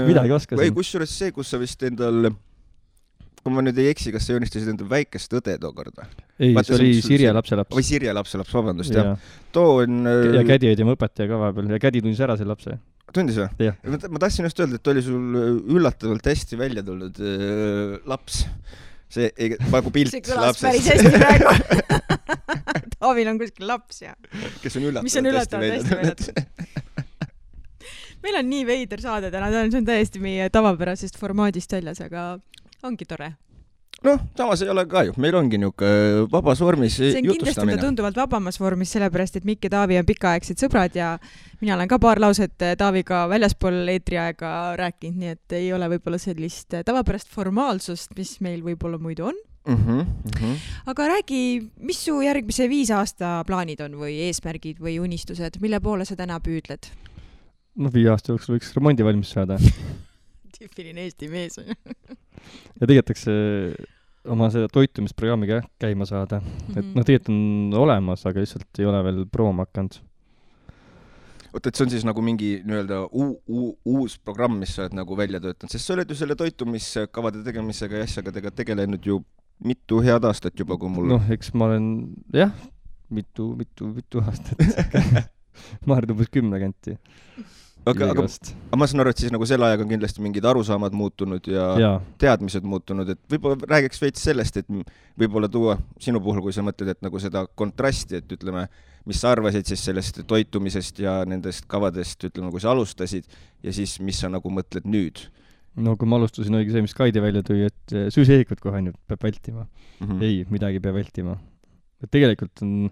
Midagi oskasin. Või kusjuures see, kus sa vist endal, kui ma nüüd ei eksi, kas sa joonistasid endal väikest õde tookord? Ei, see oli Sirje lapselaps. Või Sirje lapselaps, vabandust, jah. Too on... Ja kädi oli tema õpetaja ka vahepeal ja kädi tundis ära selle lapse. Tundis või? Ma tahtsin just öelda, et oli sul üllatavalt hästi välja tulnud laps. See nagu pilt lapsest. See kõlas päris hästi praegu. Taavil on kuskil laps ja... Kes on üllatavalt hästi välja. Meil on nii veider saade täna, see on täiesti meie tavapärasest formaadist väljas, aga ongi tore. Samas ei ole ka ju. Meil ongi niuke vabas vormis jutustamine. See on kindlasti tunduvalt vabamas vormis, sellepärast, et Mikk ja Taavi on pikaaegsed sõbrad ja mina olen ka paar lauset Taaviga väljaspool eetriaega rääkinud, nii et ei ole võib-olla sellist tavapärast formaalsust, mis meil võib-olla muidu on. Aga räägi, mis su järgmise 5 aasta plaanid on või eesmärgid või unistused, mille poole sa täna püüdled? 5 aasta jooksul võiks remondi valmis saada. Tüüpiline Eesti mees on. Ja tegetakse oma seda toitumisprogrammiga käima saada. Et tegelikult on olemas, aga lihtsalt ei ole veel prooma hakanud. Oota, et see on siis nagu mingi uus programm, mis sa oled nagu välja töötanud, sest sa oled ju selle toitumiskavade tegemisega ja asjaga tegelenud ju mitu head aastat juba, kui mul... Eks ma olen, jah, mitu aastat. ma arvan umbes 10 kanti. aga ma saan aru, et siis nagu selle ajaga on kindlasti mingid arusaamad muutunud ja teadmised muutunud, et võib-olla räägiks veits sellest, et võib-olla tuua sinu puhul, kui sa mõtled, et nagu seda kontrasti, et ütleme, mis sa arvasid siis sellest toitumisest ja nendest kavadest, ütleme, kui sa alustasid ja siis mis sa nagu mõtled nüüd? No kui ma alustasin, oligi see, mis Kaidi välja tõi, et süüseehikud kohe ainult peab vältima. Ei, midagi peab vältima. Et tegelikult on,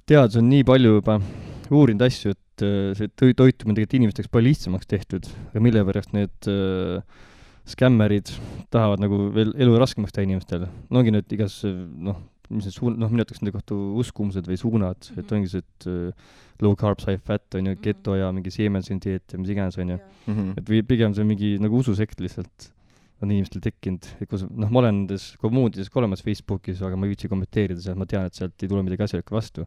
teadus on nii palju juba uurinud asju, et see toitumine tegelikult inimesteks palju lihtsamaks tehtud, aga mille pärast need skämmerid tahavad nagu veel elu raskemaks teha inimestel. No ongi need igas, mis need minu ütleks nende kohta uskumused või suunad, et ongi see, et low carb, high fat on ju, keto ja mingi siemensin dieet ja mis iganes on ju. Et pigem see mingi nagu ususekt lihtsalt on inimestel tekkinud. Ma olen nendes kommuunides ka olemas Facebookis, aga ma ei viitsi kommenteerida seal, ma tean, et sealt ei tule midagi asjalikku vastu.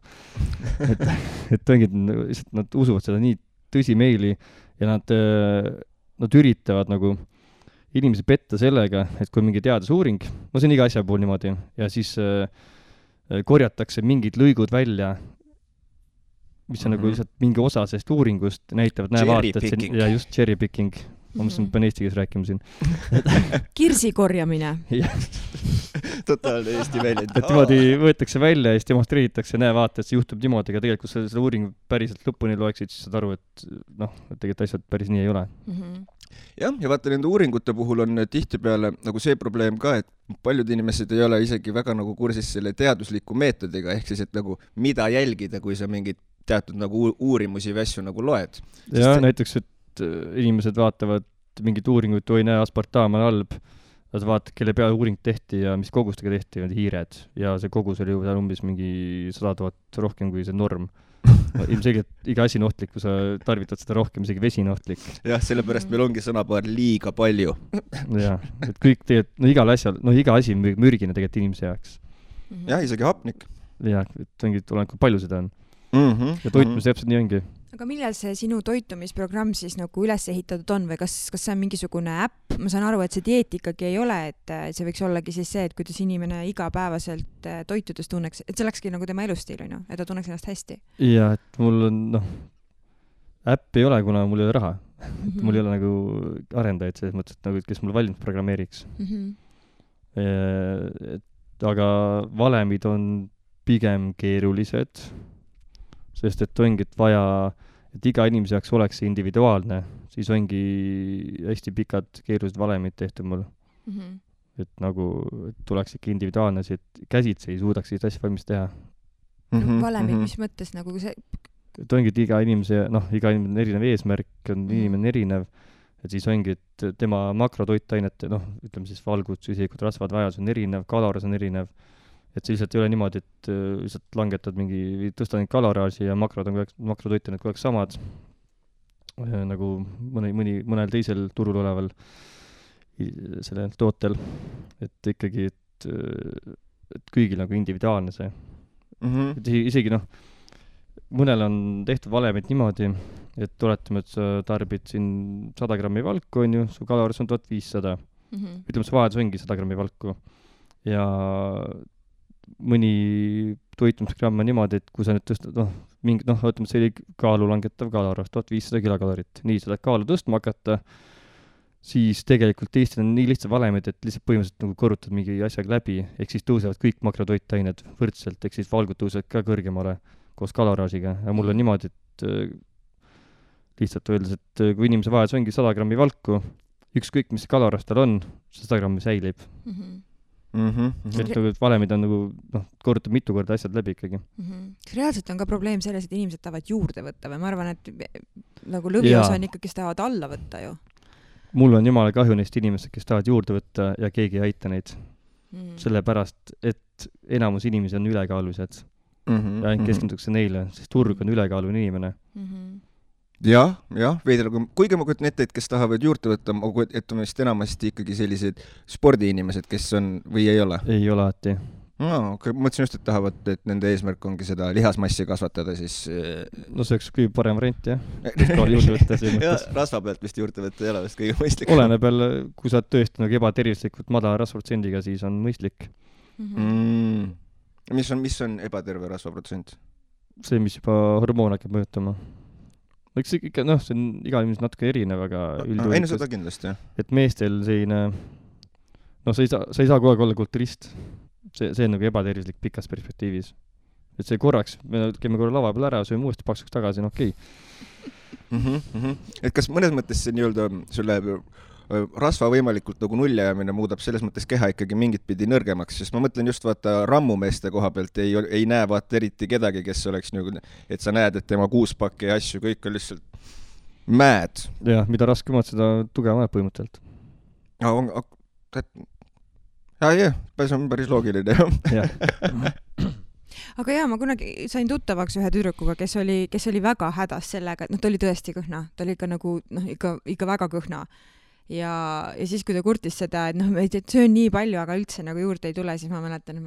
et ongi, nad usuvad seda nii tõsimeeli ja nad üritavad nagu inimesi petta sellega, et kui mingi teadusuuring, see on iga asja puhul niimoodi, ja siis korjatakse mingid lõigud välja, mis on nagu lihtsalt mingi osa sellest uuringust, näitavad, ja just cherry picking. Ma mõtlesin, et pean eesti keeles rääkima siin. Kirsi korjamine. Totaalne eesti väljend. Et niimoodi võetakse välja ja siis demonstreeritakse, vaata, et see juhtub niimoodi, aga tegelikult seda uuring päriselt lõpuni loeksid, siis saad aru, et tegelikult asjad päris nii ei ole. Jah, ja vaata, nende uuringute puhul on tihtipeale nagu see probleem ka, et paljud inimesed ei ole isegi väga nagu kursis selle teadusliku meetodiga, ehk siis, et nagu mida jälgida, kui sa mingid teatud nagu uurimusi või asju nagu loed. Ja näiteks, et inimesed vaatavad mingit uuringut, oi näe, aspartaam on halb, nad vaatavad, kelle peale uuring tehti ja mis kogustega tehti, need hiired, ja see kogus oli juba umbes mingi 100 000 rohkem kui see norm. Ilmselgelt iga asi on ohtlik, kui sa tarvitad seda rohkem, isegi vesi on ohtlik. Jah, sellepärast meil ongi sõnapaar liiga palju. Jah, et kõik tegelikult, igal asjal, iga asi on mürgine tegelikult inimese jaoks. Jah, isegi hapnik. Jah, et ongi, kui palju seda on. Ja toitumis täpselt nii ongi. Aga millal see sinu toitumisprogramm siis nagu üles ehitatud on või kas see on mingisugune äpp? Ma saan aru, et see dieet ikkagi ei ole, et see võiks ollagi siis see, et kuidas inimene igapäevaselt toitudes tunneks, et see olekski nagu tema elustiil, et ta tunneks ennast hästi. Ja, et mul on, äpp ei ole, kuna mul ei ole raha. Mul ei ole nagu arendajaid selles mõttes, et nagu, kes mul valmis programmeeriks. Aga valemid on pigem keerulised, sest et ongi, et vaja, et iga inimese jaoks oleks see individuaalne, siis ongi hästi pikad keerulised valemid tehtud mul. Et nagu, et tuleks ikka individuaalne, et käsitsi ei suudaks sellist asja valmis teha. Valemid, mis mõttes nagu see? Et ongi, et iga inimene on erinev eesmärk, inimene erinev, et siis ongi, et tema makrotoitainete, ütleme siis valgud, süsikud, rasvad, vajadus on erinev, kaloris on erinev. Et see lihtsalt ei ole niimoodi, et lihtsalt langetad tõstad neid kaloraaži ja makrotoitained kogu aeg samad, nagu mõnel teisel turul oleval sellel tootel. Et ikkagi, et kõigil nagu individuaalne see. Et isegi mõnel on tehtud valemid niimoodi, et oletame, et sa tarbid siin 100 grammi valku, on ju, su kaloris on 1500. Ütleme, see vajadus ongi 100 grammi valku. Ja mõni toitumisgramm on niimoodi, et kui sa nüüd tõstad, ütleme, see oli kaalu langetav kaloris, 1500 kilokalorit. Nii, seda kaalu tõstma hakata, siis tegelikult Eestil on nii lihtsad valemid, et lihtsalt põhimõtteliselt nagu korrutad mingi asjaga läbi, ehk siis tõusevad kõik makrotoitained võrdselt, ehk siis valgud tõusevad ka kõrgemale koos kaloraažiga. Ja mul on niimoodi, et lihtsalt öeldes, et kui inimese vajadus ongi 100 grammi valku, ükskõik mis kaloraas tal on, 100 grammi säilib. Et valemid on nagu, korrutab mitu korda asjad läbi ikkagi. Reaalselt on ka probleem selles, et inimesed tahavad juurde võtta või ma arvan, et nagu lõviosa on ikka, kes tahavad alla võtta ju. Mul on jumala kahju neist inimesed, kes tahavad juurde võtta ja keegi ei aita neid. Sellepärast, et enamus inimesi on ülekaalulised ja ainult keskendutakse neile, sest turg on ülekaaluline inimene. Jah, veidra, kuigi ma kujutan ette, et kes tahavad juurde võtta, et on vist enamasti ikkagi sellised spordiinimesed, kes on või ei ole? Ei ole alati. Mõtlesin just, et tahavad, et nende eesmärk ongi seda lihasmassi kasvatada, siis... No see oleks kõige parem variant, jah. Juurde võtta see mõttes. Rasva pealt vist juurde võtta ei ole vist kõige mõistlik. Oleneb jälle, kui sa oled tõesti nagu ebatervislikult madala rasvaprotsendiga, siis on mõistlik. Mis on ebaterve rasvaprotsent? see, mis juba hormoon hakkab mõjutama. Eks ikka, see on igal inimesel natuke erinev, aga ei, seda kindlasti, jah. Et meestel selline, sa ei saa kogu aeg olla kulturist. See on nagu ebatervislik pikas perspektiivis. Et see korraks, me käime korra lava peal ära, sööme uuesti paksuks tagasi, okei. Et kas mõnes mõttes see nii-öelda sulle rasva võimalikult nagu nuljajamine muudab selles mõttes keha ikkagi mingit pidi nõrgemaks, sest ma mõtlen just vaata rammumeeste koha pealt ei näe vaata eriti kedagi, kes oleks nagu, et sa näed, et tema kuuspakki ja asju, kõik on lihtsalt mäed. Jah, mida raskemad, seda tugevamad põhimõtteliselt. See on päris loogiline. Aga ma kunagi sain tuttavaks ühe tüdrukuga, kes oli väga hädas sellega, et ta oli tõesti kõhna, ta oli ikka nagu, ikka väga kõhna. Ja siis, kui ta kurtis seda, et söön nii palju, aga üldse nagu juurde ei tule, siis ma mäletan,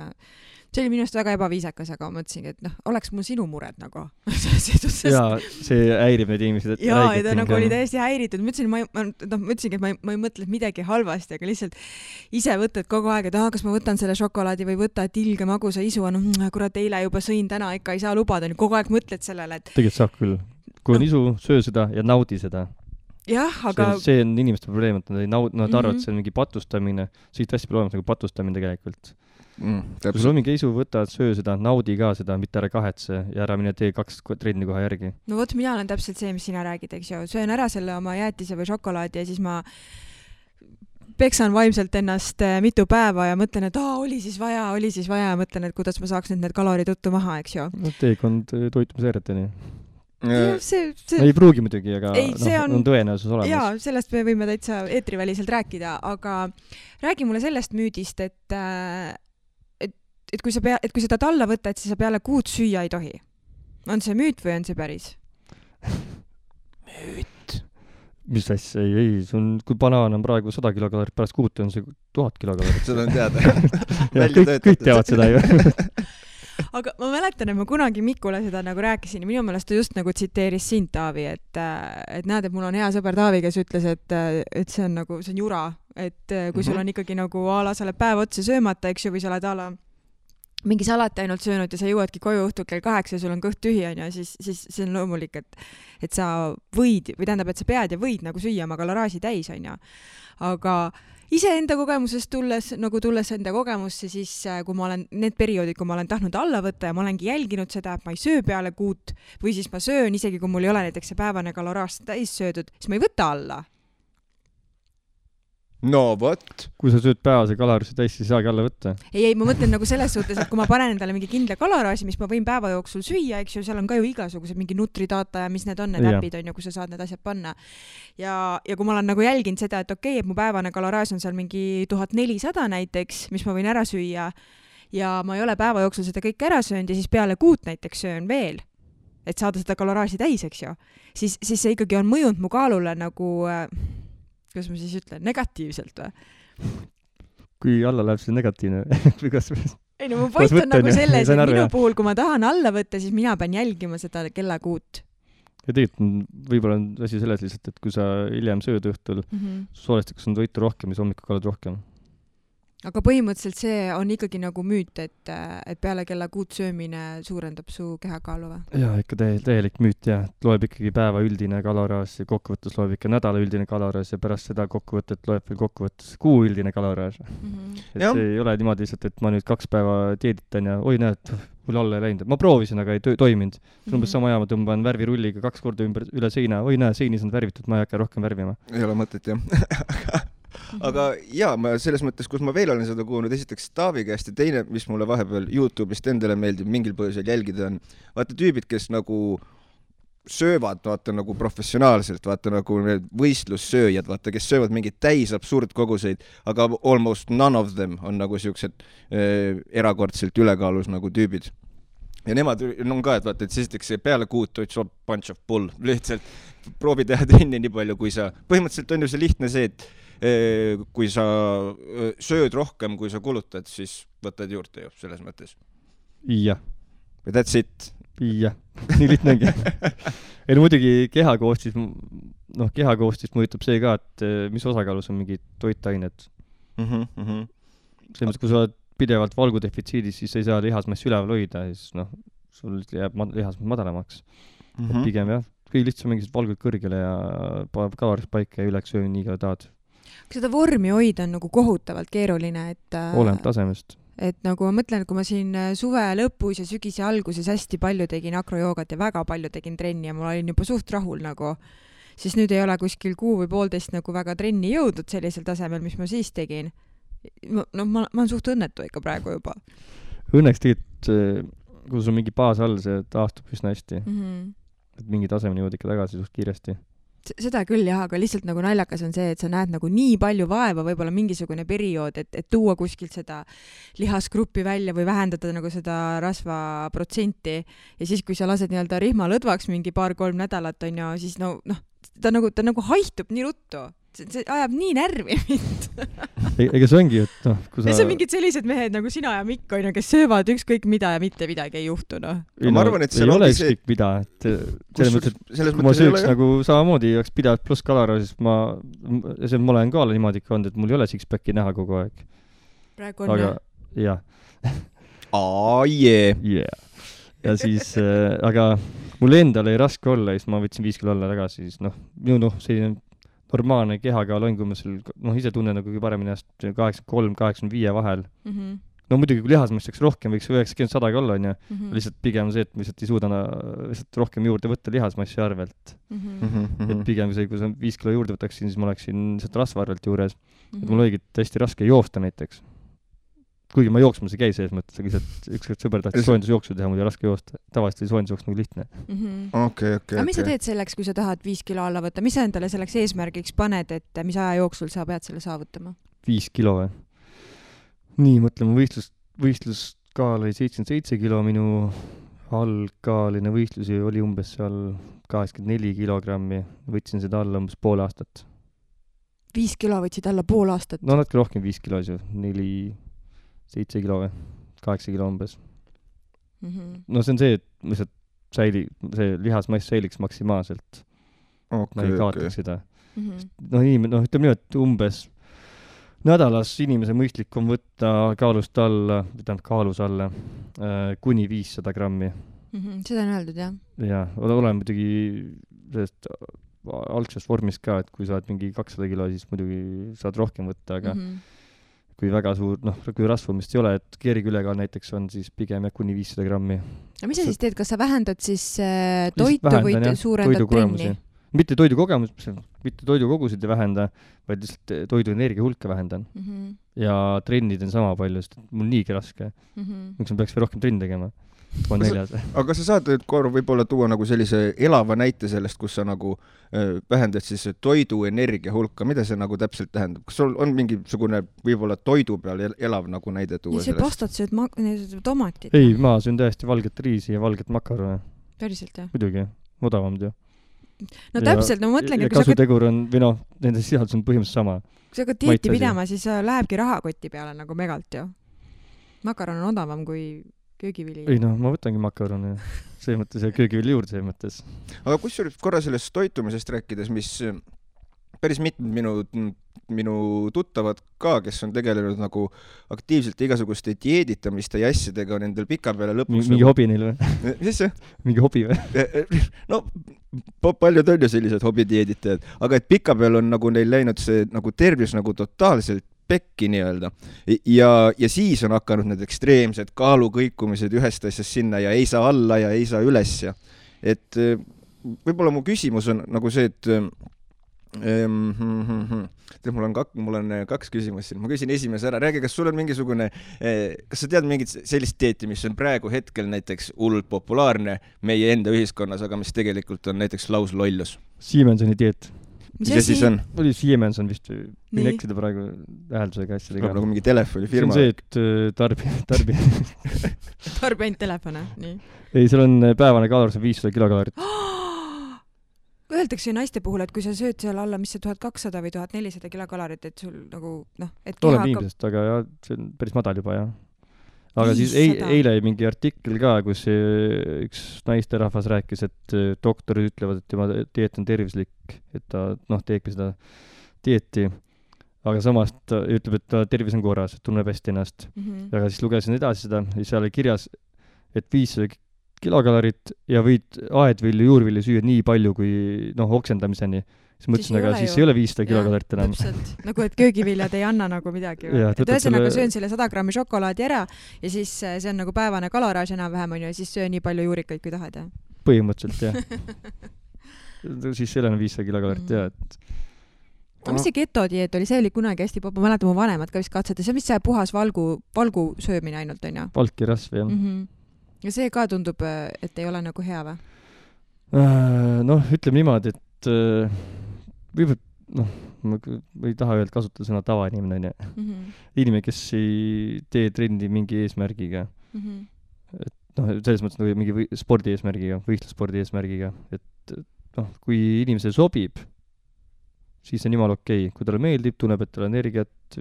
see oli minust väga ebaviisakas, aga ma mõtlesingi, et oleks mul sinu mured nagu. Jaa, see häirib neid inimesed. Jaa, ja ta nagu oli täiesti häiritud. Mõtlesingi, et ma ei mõtle midagi halvasti, aga lihtsalt ise võtad kogu aeg, et kas ma võtan selle šokolaadi või võta, et ilge magusa isu on, kurat, eile juba sõin, täna ikka ei saa lubada. Kogu aeg mõtled sellele, et... Tegelikult saab küll. Kui on isu, söö seda ja naudi seda. Jah, aga... See on inimeste probleem, et nad arvavad, et see on mingi patustamine. Siit hästi palju olemas nagu patustamine tegelikult. Kui sul on mingi isu, võtad, söö seda, naudi ka seda, mitte ära kahetse ja ära mine tee 2 trenni kohe järgi. No vot, mina olen täpselt see, mis sina räägid, eks ju. Söön ära selle oma jäätise või šokolaadi ja siis ma peksan vaimselt ennast mitu päeva ja mõtlen, et oli siis vaja ja mõtlen, et kuidas ma saaks need kalorid uttu maha, eks ju. Teekond toitumisääreteni. Ei pruugi muidugi, aga on tõenäosus olemas. Jaa, sellest me võime täitsa eetriväliselt rääkida, aga räägi mulle sellest müüdist, et kui sa tahad alla võtta, et siis sa peale kuud süüa ei tohi. On see müüt või on see päris? Müüt. Mis asja? Ei, kui banaan on praegu 100 kilokalorit, pärast kuut on see 1000 kilokalorit. Seda on teada. Kõik teavad seda ju. Aga ma mäletan, et ma kunagi Mikule seda nagu rääkisin ja minu meelest ta just nagu tsiteeris sind, Taavi, et näed, et mul on hea sõber Taavi, kes ütles, et see on nagu, see on jura, et kui sul on ikkagi nagu sa oled päev otsa söömata, eks ju, või sa oled mingi salati ainult söönud ja sa jõuadki koju õhtul kell 8 ja sul on kõht tühi, siis see on loomulik, et sa võid, või tähendab, et sa pead ja võid nagu süüa oma kaloraaži täis, on ju. Aga iseenda kogemusest tulles enda kogemusse, siis kui ma olen need perioodid, kui ma olen tahtnud alla võtta ja ma olengi jälginud seda, et ma ei söö peale kuut või siis ma söön, isegi kui mul ei ole näiteks see päevane kaloraaž täis söödud, siis ma ei võta alla. No vot. Kui sa sööd päevase kaloraaži täis, siis saagi alla võtta. Ei, ma mõtlen nagu selles suhtes, et kui ma panen endale mingi kindla kaloraaži, mis ma võin päeva jooksul süüa, eks ju, seal on ka ju igasugused mingi Nutridata ja mis need on, need äpid on ju, kus sa saad need asjad panna. Ja kui ma olen nagu jälginud seda, et okei, et mu päevane kaloraaž on seal mingi 1400 näiteks, mis ma võin ära süüa ja ma ei ole päeva jooksul seda kõik ära söönud ja siis peale kuut näiteks söön veel, et saada seda kaloraaži täis, eks ju, siis see ikkagi on mõjunud mu kaalule nagu... kuidas ma siis ütlen, negatiivselt või? Kui alla läheb see negatiivne või kas... Ei no mu point on nagu selles, et minu puhul, kui ma tahan alla võtta, siis mina pean jälgima seda kellakuut. Ja tegelikult võib-olla on asi selles lihtsalt, et kui sa hiljem sööd õhtul, soolestikus on toitu rohkem ja hommikul kallad rohkem. Aga põhimõtteliselt see on ikkagi nagu müüt, et peale kella kuut söömine suurendab su kehakaalu või? Jaa, ikka täielik müüt, jah. Loeb ikkagi päeva üldine kaloraaž ja kokkuvõttes loeb ikka nädala üldine kaloraaž ja pärast seda kokkuvõtet loeb veel kokkuvõttes kuu üldine kaloraaž. Et see ei ole niimoodi lihtsalt, et ma nüüd 2 päeva dieeditan ja oi näed, mul alla ei läinud. Ma proovisin, aga ei toiminud. See on umbes sama ma tõmban värvirulliga 2 korda üle seina. Oi näe, seinis on värvitud, ma ei hakka rohkem värvima. Ei ole mõtet, jah. Aga jaa, ma selles mõttes, kus ma veel olen seda kuulnud, esiteks Taavi käest ja teine, mis mulle vahepeal YouTube'ist endale meeldib mingil põhjusel jälgida on, vaata tüübid, kes nagu söövad, vaata nagu professionaalselt, vaata nagu need võistlussööjad, vaata, kes söövad mingid täis absurdkoguseid, aga almost none of them on nagu siuksed erakordselt ülekaalus nagu tüübid. Ja nemad on ka, et vaata, et esiteks peale kuut it's a bunch of bull, lihtsalt proovi teha trenni nii palju, kui sa, põhimõtteliselt on ju see lihtne see, et kui sa sööd rohkem, kui sa kulutad, siis võtad juurde ju, selles mõttes. Jah. That's it. Jah, nii lihtne ongi. Ja muidugi kehakoostist mõjutab see ka, et mis osakaalus on mingid toitained. Selles mõttes, kui sa oled pidevalt valgudefitsiidis, siis ei saa lihasmassi üleval hoida, siis sul jääb lihas madalamaks. Et pigem jah, kõige lihtsam mingisugused valgud kõrgele ja paneb kalorid paika ja üleks söömi nii ka tahad. Kas seda vormi hoida on nagu kohutavalt keeruline, et oleneb tasemest. Et nagu ma mõtlen, kui ma siin suve lõpus ja sügise alguses hästi palju tegin akrojoogat ja väga palju tegin trenni ja ma olin juba suht rahul nagu, siis nüüd ei ole kuskil 1 või 1,5 nagu väga trenni jõudnud sellisel tasemel, mis ma siis tegin. No ma olen suht õnnetu ikka praegu juba. Õnneks tegelikult, kui sul on mingi baas all, see taastub üsna hästi. Et mingi tasemeni jõud ikka tagasi suht kiiresti. Seda küll jah, aga lihtsalt nagu naljakas on see, et sa näed nagu nii palju vaeva, võib-olla mingisugune periood, et tuua kuskilt seda lihasgruppi välja või vähendada nagu seda rasvaprotsenti ja siis, kui sa lased nii-öelda rihma lõdvaks mingi 2-3 nädalat, on ju, siis ta nagu haihtub nii ruttu. See ajab nii närvi mind. Ega see ongi, et kui sa... Ja see on mingid sellised mehed nagu sina ja Mikk, on ju, kes söövad ükskõik mida ja mitte midagi ei juhtu, Ma arvan, et ei ole ükskõik mida, et selles mõttes, et kui ma sööks nagu samamoodi oleks pidavalt pluss kalora, siis ma olen ka niimoodi ikka olnud, et mul ei ole six-packi näha kogu aeg. Praegu on aga, jah. Ja siis, aga mul endal ei raske olla, siis ma võtsin 5 kilo alla tagasi, siis selline normaalne kehakaal on, kui ma ise tunnen nagu paremini 83-85 vahel. No muidugi, kui lihasmass oleks rohkem, võiks 90-100 olla, on ju. Lihtsalt pigem see, et ma lihtsalt ei suuda lihtsalt rohkem juurde võtta lihasmassi arvelt. Et pigem see, kui sa 5 kilo juurde võtaksin, siis ma oleksin lihtsalt rasva arvelt juures. Et mul oligi hästi raske joosta näiteks. Kuigi ma jooksmas ei käi selles mõttes, aga lihtsalt ükskord sõber tahtis soojendusjooksu teha, mul ei raske joosta. Tavaliselt oli soojendusjooks nagu lihtne. Aga mis sa teed selleks, kui sa tahad 5 kilo alla võtta? Mis sa endale selleks eesmärgiks paned, et mis aja jooksul sa pead selle saavutama? 5 kilo või? Nii, mõtleme, võistluskaal oli 77 kilo, minu algkaaline võistlusi oli umbes seal 84 kilogrammi. Võtsin seda alla umbes pool aastat. 5 kilo võtsid alla pool aastat? No natuke rohkem 5 kilo, 7 kilo või 8 kilo umbes. No see on see, et lihtsalt see lihasmass säiliks maksimaalselt. Ma ei kaotaks seda. Ütleme nii, et umbes nädalas inimese mõistlik on võtta kaalust alla, kaalus alla kuni 500 grammi. Seda on öeldud, jah? Jah, olen muidugi sellest algsest vormist ka, et kui saad mingi 200 kilo, siis muidugi saad rohkem võtta, aga kui väga suur, kui rasvumist ei ole, et keerikülekaal näiteks on, siis pigem kuni 500 grammi. Ja mis sa siis teed? Kas sa vähendad siis toitu või suurendad trenni? Mitte toidukogusid ei vähenda, vaid lihtsalt toidu energia hulka vähendan. Ja trennid on sama palju, sest mul niigi raske. Miks ma peaks veel rohkem trenni tegema? Aga sa saad võib-olla tuua nagu sellise elava näite sellest, kus sa nagu vähendad siis toidu energia hulka. Mida see nagu täpselt tähendab? Kas sul on mingisugune võib-olla toidu peal elav nagu näide tuua sellest? See pastat sööd tomatit. Ei, ma söön täiesti valget riisi ja valget makarone. Päriselt, jah? Muidugi, odavamad ju. No täpselt, ma mõtlengi, ja kasutegur on, või nende sisaldus on põhimõtteliselt sama. Kui sa ka dieeti pidama, siis lähebki rahakoti peale nagu megalt ju. Makaron on odavam kui köögivili. Ei ma võtangi makaroni see mõttes ja köögivili juurde see mõttes. Aga kusjuures korra sellest toitumisest rääkides, mis päris mitmed minu tuttavad ka, kes on tegelenud nagu aktiivselt igasuguste dieeditamiste ja asjadega, on endal pika peale lõpuks mingi hobi neil või? Mis see? Mingi hobi või? No paljud on ju sellised hobidieeditajad, aga et pika peal on nagu neil läinud see nagu tervis nagu totaalselt pekki nii-öelda. Ja siis on hakanud need ekstreemsed kaalukõikumised ühest asjast sinna ja ei saa alla ja ei saa üles. Et võib-olla mu küsimus on nagu see, et mul on 2 küsimust siin. Ma küsin esimese ära. Räägi, kas sul on mingisugune, kas sa tead mingit sellist dieeti, mis on praegu hetkel näiteks hullult populaarne meie enda ühiskonnas, aga mis tegelikult on näiteks lauslollus? Siemensoni dieet. Mis see siis on? Oli Siemens on vist, võin eksida praegu hääldusega asjadega. Nagu mingi telefonifirma. See on see, et tarbi ainult telefone, nii. Ei, seal on päevane kalor, see 500 kilokalorit. Öeldakse naiste puhul, et kui sa sööd seal alla, mis see 1200 või 1400 kilokalorit, et sul nagu, et keha hakkab... aga jah, see on päris madal juba, jah. Aga 500. Siis eile mingi artikkel ka, kus üks naisterahvas rääkis, et doktorid ütlevad, et tema dieet on tervislik, et ta teebki seda dieeti, aga samas ta ütleb, et ta tervis on korras, et tunneb hästi ennast. Aga siis lugesin edasi seda ja seal oli kirjas, et 500 kilokalorit ja võid aedvilju, juurvilju süüa nii palju kui oksendamiseni. Siis mõtlesin, aga siis ei ole 500 kilokalorit enam. Täpselt, nagu et köögiviljad ei anna nagu midagi. Et ühesõnaga söön selle 100 grammi šokolaadi ära ja siis see on nagu päevane kaloraaž enam-vähem on ju, ja siis söö nii palju juurikaid kui tahad. Ja? Põhimõtteliselt, jah. Siis ei ole 500 kilokalorit, jah. Mis see ketodieet oli? See oli kunagi hästi ma mäletan, mu vanemad ka vist katsete. See on vist see puhas valgu söömine ainult, on ju? Valki rasv, jah. Ja see ka tundub, et ei ole nagu hea või? Ütleme niimoodi, et võib-olla, ma ei taha öelda kasutada sõna tavainimene, on ju. Inimene, kes ei tee trendi mingi eesmärgiga. Et selles mõttes nagu mingi spordi eesmärgiga, võistlusspordi eesmärgiga. Et kui inimesele sobib, siis on jumala okei. Kui talle meeldib, tunneb, et tal energiat,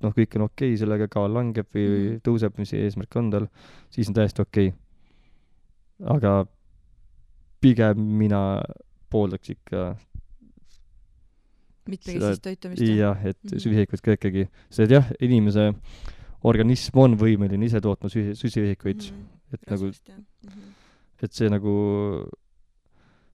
kõik on okei, sellega kaal langeb või tõuseb, mis eesmärk on tal, siis on täiesti okei. Aga pigem mina pooldaks ikka mitmekesist toitumist. Jah, et süsihikuid ka ikkagi. Sest jah, inimese organism on võimeline ise tootma süsihikuid. Et see nagu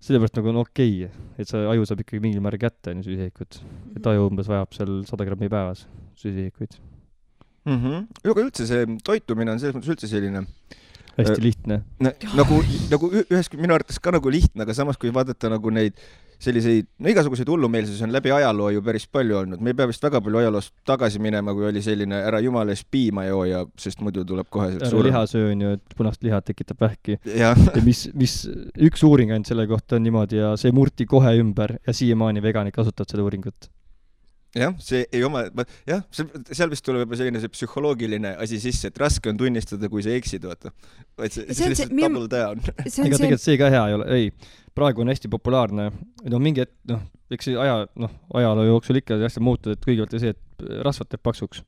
sellepärast nagu on okei, et see aju saab ikkagi mingil määral kätte süsihikuid. Et aju umbes vajab seal 100 grammi päevas süsihikuid. Aga üldse see toitumine on selles mõttes üldse selline hästi lihtne. Nagu ühes minu arvates ka nagu lihtne, aga samas kui vaadata nagu neid selliseid, igasuguseid hullumeelsusi on läbi ajaloo ju päris palju olnud. Me ei pea vist väga palju ajaloost tagasi minema, kui oli selline ära jumala ees piima jooja, sest muidu tuleb kohe suurem. Lihasöö on ju, et punast liha tekitab vähki. Ja mis üks uuring ainult selle kohta on niimoodi ja see murti kohe ümber ja siiamaani veganid kasutavad seda uuringut. Jah, see ei oma, jah, seal vist tuleb juba selline see psühholoogiline asi sisse, et raske on tunnistada, kui sa eksid, vaata. Vaid see lihtsalt double down. Ega tegelikult see ka hea ei ole. Ei, praegu on hästi populaarne. Mingi hetk, eks see ajaloo jooksul ikka hästi muutud, et kõigepealt see, et rasvad teeb paksuks.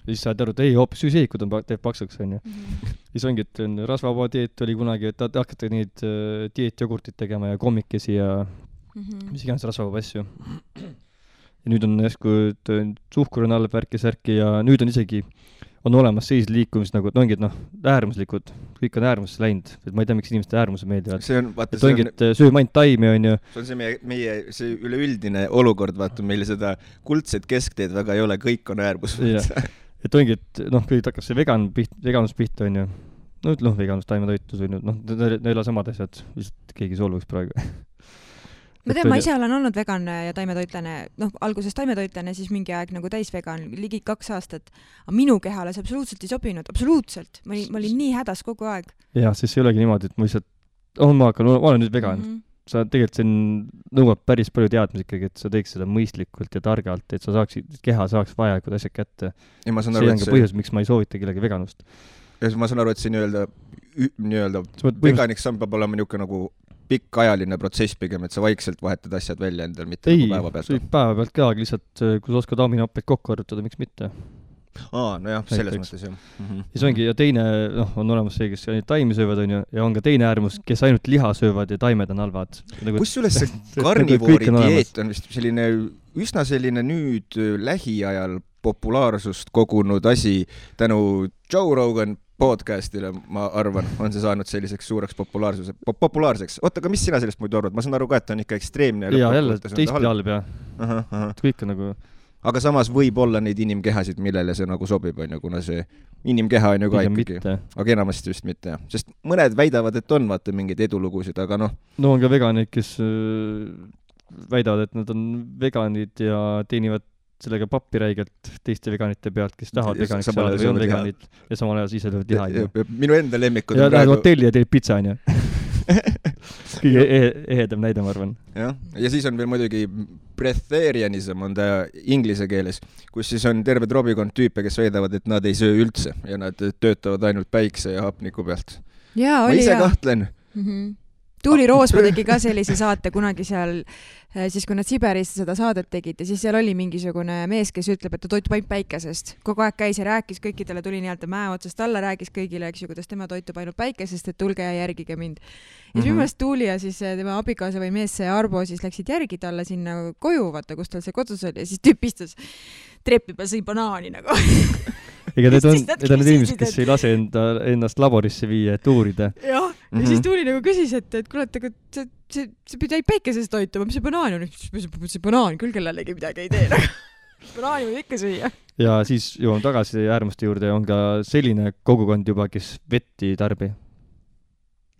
Siis saad aru, et ei, hoopis süsihikud teeb paksuks, on ju. Siis ongi, et rasvavaba dieet oli kunagi, et hakata neid dieetjogurtid tegema ja kommikesi ja mis iganes rasvavaba asju. Ja nüüd on jäsku suhkur on all värki ja nüüd on isegi on olemas sellised liikumised nagu, et ongi, et äärmuslikud, kõik on äärmusse läinud, et ma ei tea, miks inimeste äärmuse meeldivad. See on, vaata, et ongi, et sööme ainult taimi, on ju. See on see meie see üleüldine olukord, vaata, meile seda kuldset keskteed väga ei ole, kõik on äärmus. Et ongi, et kõik hakkas see veganus pihta, on ju. Veganus, taimetoitus, on ju, need ei ole samad asjad, lihtsalt keegi solvuks praegu. Ma tean, ma ise olen olnud vegan ja taimetoitlane, alguses taimetoitlane, siis mingi aeg nagu täisvegan, ligi 2 aastat. Aga minu kehale see absoluutselt ei sobinud, absoluutselt. Ma olin nii hädas kogu aeg. Jah, siis ei olegi niimoodi, et ma lihtsalt, ma olen nüüd vegan. Sa tegelikult see nõuab päris palju teadmisi ikkagi, et sa teeks seda mõistlikult ja targalt, et sa keha saaks vajalikud asjad kätte. See on ka põhjus, miks ma ei soovita kellegi veganust. Ja ma saan aru, et see nii-öelda veganiks samm peab olema niuke nagu pikk ajaline protsess pigem, et sa vaikselt vahetad asjad välja endal, mitte nagu päeva pealt. Ei, päeva pealt ka, aga lihtsalt kui sa oskad aminoppeid kokku arvutada, miks mitte? Nojah, selles mõttes jah. Ja see ongi, ja teine, on olemas see, kes ainult taimi söövad, on ju, ja on ka teine äärmus, kes ainult liha söövad ja taimed on halvad. Kusjuures see karnivoori dieet on vist selline, üsna selline nüüd lähiajal populaarsust kogunud asi tänu Joe Rogan podcastile, ma arvan, on see saanud selliseks suureks populaarseks. Oota, aga mis sina sellest muidu arvad? Ma saan aru ka, et on ikka ekstreemne. Jaa, jälle, teistpidi halb, jah. Kõik on nagu... Aga samas võib olla neid inimkehasid, millele see nagu sobib, on ju, kuna see inimkeha on ju ka ikkagi. Aga enamasti just mitte, jah. Sest mõned väidavad, et on vaata mingeid edulugusid, aga No on ka veganid, kes väidavad, et nad on veganid ja teenivad sellega pappi räigelt teiste veganite pealt, kes tahavad veganiks saada või on veganid ja samal ajal ise löövad liha. Minu enda lemmikud ja lähed hotelli ja teed pitsa, on ju. Kõige ehedam näide, ma arvan. Ja siis on veel muidugi breatharianism on ta inglise keeles, kus siis on terve trobikond tüüpe, kes väidavad, et nad ei söö üldse ja nad töötavad ainult päikse ja hapniku pealt. Ma ise kahtlen. Tuuli Roosma tegi ka sellise saate kunagi seal, siis kui nad Siberis seda saadet tegid ja siis seal oli mingisugune mees, kes ütleb, et ta toitub ainult päikesest. Kogu aeg käis ja rääkis, kõikidele tuli nii-öelda mäe otsast alla, rääkis kõigile, eks ju, kuidas tema toitub ainult päikesest, et tulge ja järgige mind. Ja siis minu Tuuli ja siis tema abikaasa või mees see Arbo siis läksid järgi talle sinna koju, vaata, kus tal see kodus oli ja siis tüüp istus treppi peal sõi banaani nagu. ega need on need inimesed, kes ei lase ennast laborisse viia, et uurida. Jah, ja siis Tuuli nagu küsis, et kuule, et see pidi päikeses toituma, mis see banaan on? See banaan küll kellelegi midagi ei tee. Banaani võib ikka süüa. Ja siis jõuame tagasi äärmuste juurde, on ka selline kogukond juba, kes vett ei tarbi.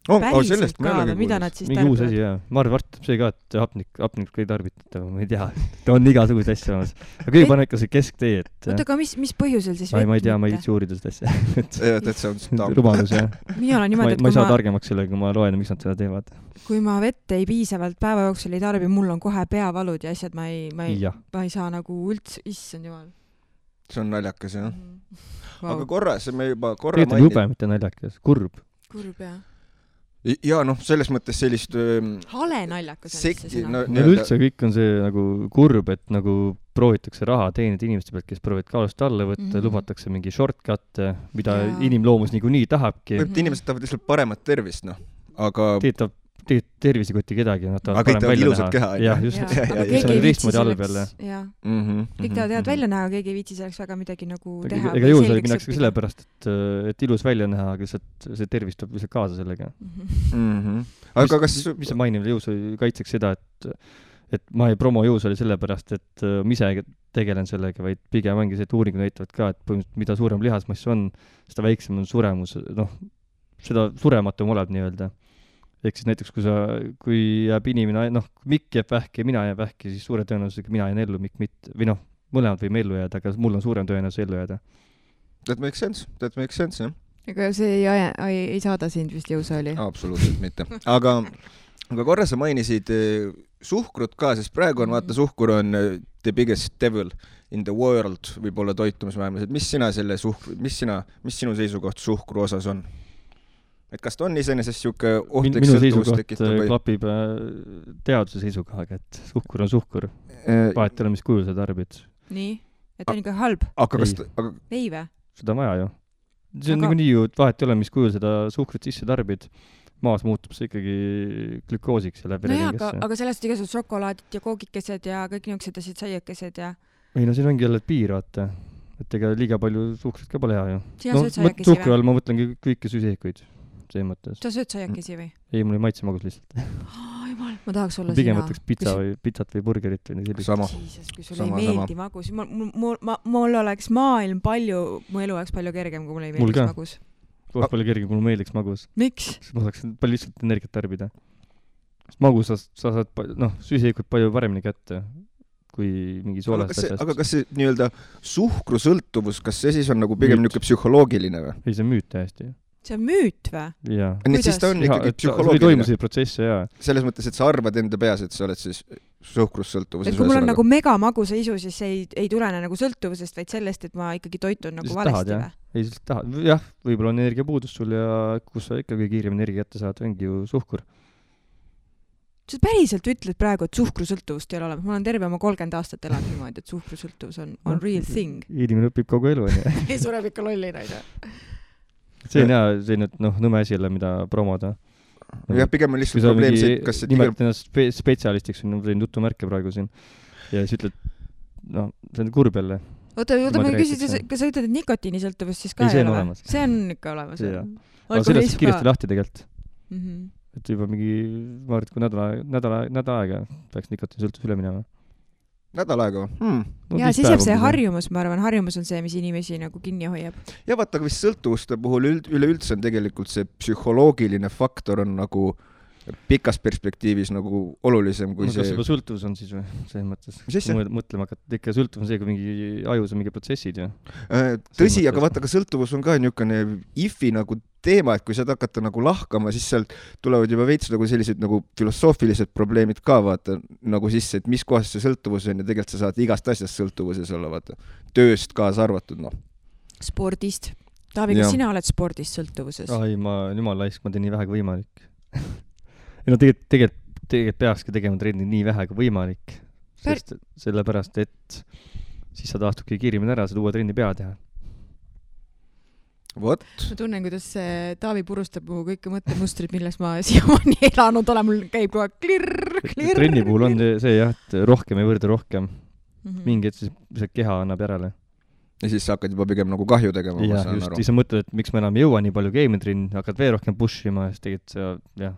Päriselt ka, mida nad siis tarbivad? Mingi uus asi, jah. Ma arvan, see ka, et hapnik ei tarbita, ma ei tea. Ta on igasugust asja olemas. Aga kõige paneb ikka see kesktee, et... Oota, aga mis põhjusel siis vett ma ei tea, ma ei viitsi uurida seda asja. Et see on rumalus, jah. Mina olen niimoodi, et ma ei saa targemaks sellega, kui ma loen, miks nad seda teevad. Kui ma vett ei piisavalt päeva jooksul ei tarbi, mul on kohe peavalud ja asjad, ma ei saa nagu üldse, issand jumal. See on naljakas, jah. Aga korras, me juba tegelikult jube, mitte naljakas. Kurb, jah. Ja selles mõttes sellist hale naljakas on see sõna. Üldse kõik on see nagu kurb, et nagu proovitakse raha teenida inimeste pealt, kes proovivad kaalust alla võtta, lubatakse mingi shortcut, mida inimloomus niikuinii tahabki. Inimesed tahavad lihtsalt paremat tervist, aga... tervisekoti kedagi, nad tahavad parem välja näha. Keha, jah, just. See on teistmoodi halb jälle. Kõik tahavad välja näha, keegi ei viitsi selleks väga midagi nagu teha. Ega jõusali minnakse ka sellepärast, et ilus välja näha, aga see tervis tuleb lihtsalt kaasa sellega. Aga kas... Mis see mainimine jõusali kaitseks seda, et ma ei promo jõusali sellepärast, et ma ise tegelen sellega, vaid pigem ongi see, et uuringud näitavad ka, et põhimõtteliselt mida suurem lihasmass on, seda väiksem on suremus, seda surematum oleb nii-öelda. Ehk siis näiteks, kui jääb inimene, Mikk jääb vähki ja mina jääb vähki, siis suure tõenäosusega mina jään ellu, Mikk mitte. Või mõlemad võime ellu jääda, aga mul on suurem tõenäosus ellu jääda. That makes sense, jah. Aga see ei saada sind vist jõusaali? Absoluutselt mitte. Aga korra sa mainisid suhkrut ka, sest praegu on, vaata, suhkur on the biggest devil in the world, võib-olla toitumismaailmas. Mis sinu seisukoht suhkru osas on? Et kas ta on iseenesest siuke ohtlik sõltuvus tekitab? Minu seisukoht klapib teaduse seisukohaga, et suhkur on suhkur. Vahet ei ole, mis kujul sa tarbid. Nii? Et on ikka halb? Ei või? Seda on vaja ju. See on nii ju, vahet ei ole, mis kujul seda suhkrit sisse tarbid. Maas muutub see ikkagi glükoosiks ja läbi ringesse. Aga sellest igasugused šokolaadid ja koogikesed ja kõik niisugused asjad, saiakesed ja... Ei, siin ongi jälle piir, vaata. Et ega liiga palju suhkrit ka pole hea ju. Sina sööd saiakesi või? Suhkru all ma mõtlengi kõiki süsihikuid. Sa sööd saiakesi või? Ei, mul ei maitse magus lihtsalt. Jumal, ma tahaks olla pigem võtaks pitsat või burgerit või nii sellist. Jesus, kui sul ei meeldi magus. Mul oleks maailm mu elu oleks palju kergem, kui mul ei meeldiks magus. Oleks palju kergem, kui mul meeldiks magus. Miks? Ma saaks palju lihtsalt energiat tarbida. Magus sa saad süsihikud palju paremini kätte kui mingi soolast asjast. Aga kas see nii-öelda suhkrusõltuvus, kas see siis on nagu pigem niisugune psühholoogiline või? Ei, see on müüt täiesti. See on müüt või? Jaa. Nii, siis ta on ikkagi psühholoogiline. See toimus see protsess, jaa. Selles mõttes, et sa arvad enda peas, et sa oled siis suhkrussõltuvuses. Et kui mul on nagu megamagusa isu, siis ei tulene nagu sõltuvusest, vaid sellest, et ma ikkagi toitun nagu valesti või? Ei, siis tahad. Jah, võib-olla on energiapuudus sul ja kus sa ikkagi kiirem energia kätte saad, ongi ju suhkur. Sa päriselt ütled praegu, et suhkrusõltuvust ei ole olemas. Ma olen terve oma 30 aastat elanud niimoodi, et suhkrusõltuvus on real thing. Inimene õpib kogu elu. Ei sureb ikka lollina. See on hea, see on nõme asi jälle, mida promoda. Jah, pigem on lihtsalt probleem see, kas see... Nimelt ennast spetsialistiks on jutumärke praegu siin. Ja siis ütled, see on kurb jälle. Oota, ma küsid, kas sa ütled, et nikotiinisõltuvust siis ka ei ole? See on ikka olemas. Aga sellest kiiresti lahti tegelikult. Et juba mingi, ma arvan, et kui nädal aega peaks nikotiinisõltuvus üle minema. Nädal aega või? Ja siis jääb see harjumus, ma arvan, harjumus on see, mis inimesi nagu kinni hoiab. Ja vaata, aga vist sõltuvuste puhul üleüldse on tegelikult see psühholoogiline faktor on nagu pikas perspektiivis nagu olulisem kui see... Kas juba sõltuvus on siis või? Selles mõttes. Mis asja? Mõtlema, et ikka sõltuvus on see, kui mingi ajus on mingi protsessid ju. Tõsi, aga vaata, ka sõltuvus on ka niisugune ifi nagu teema, et kui sa hakata nagu lahkama, siis sealt tulevad juba veits nagu sellised nagu filosoofilised probleemid ka, vaata, nagu sisse, et mis kohas see sõltuvus on ja tegelikult sa saad igast asjast sõltuvuses olla, vaata. Tööst kaasa arvatud, Spordist. Taavi, kas sina oled spordist sõltuvuses? Ai, jumal laisk, ma teen nii vähe kui võimalik. Tegelikult peakski tegema trenni nii vähe kui võimalik. Sellepärast, et siis sa taastubki kiirimini ära, saad uue trenni pea teha. What? Ma tunnen, kuidas Taavi purustab mu kõike mõttemustrid, milles ma siiamaani elanud olen. Mul käib kogu aeg klirr. Trenni puhul on see jah, et rohkem ei võrda rohkem. Mingi, et siis keha annab järele. ja siis sa hakkad juba pigem nagu kahju tegema, ma saan aru. Just, sa mõtled, et miks ma enam ei jõua nii palju game-trenni, hakkad veel rohkem pushima ja siis tegelikult see,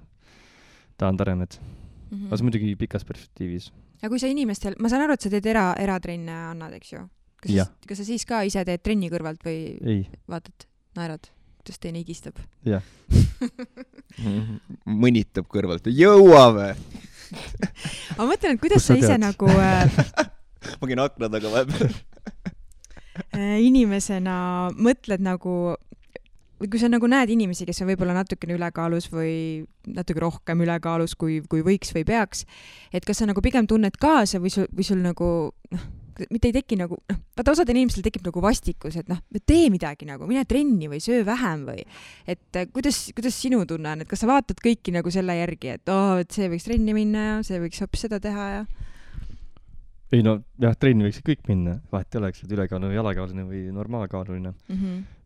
tahan taremed. Aga see muidugi pikas perspektiivis. Ja kui sa inimestel, ma saan aru, et sa teed eratrenne annad, eks ju? Kas sa siis ka ise teed trenni kõrvalt või vaatad, naerad, kuidas teine higistab? Jah. Mõnitab kõrvalt, jõuame! Ma mõtlen, et kuidas sa ise nagu... Ma käin akna taga vahepeal. Inimesena mõtled nagu... Või kui sa nagu näed inimesi, kes on võib-olla natukene ülekaalus või natuke rohkem ülekaalus, kui võiks või peaks, et kas sa nagu pigem tunned kaasa või sul nagu, mitte ei teki nagu, vaata osadel inimestel tekib nagu vastikus, et tee midagi nagu, mine trenni või söö vähem või, et kuidas sinu tunne on, et kas sa vaatad kõiki nagu selle järgi, et et see võiks trenni minna ja see võiks hoopis seda teha ja... Ei trenni võiks kõik minna, vahet ei oleks, et ülekaaluline, jalakaaluline või normaalkaaluline.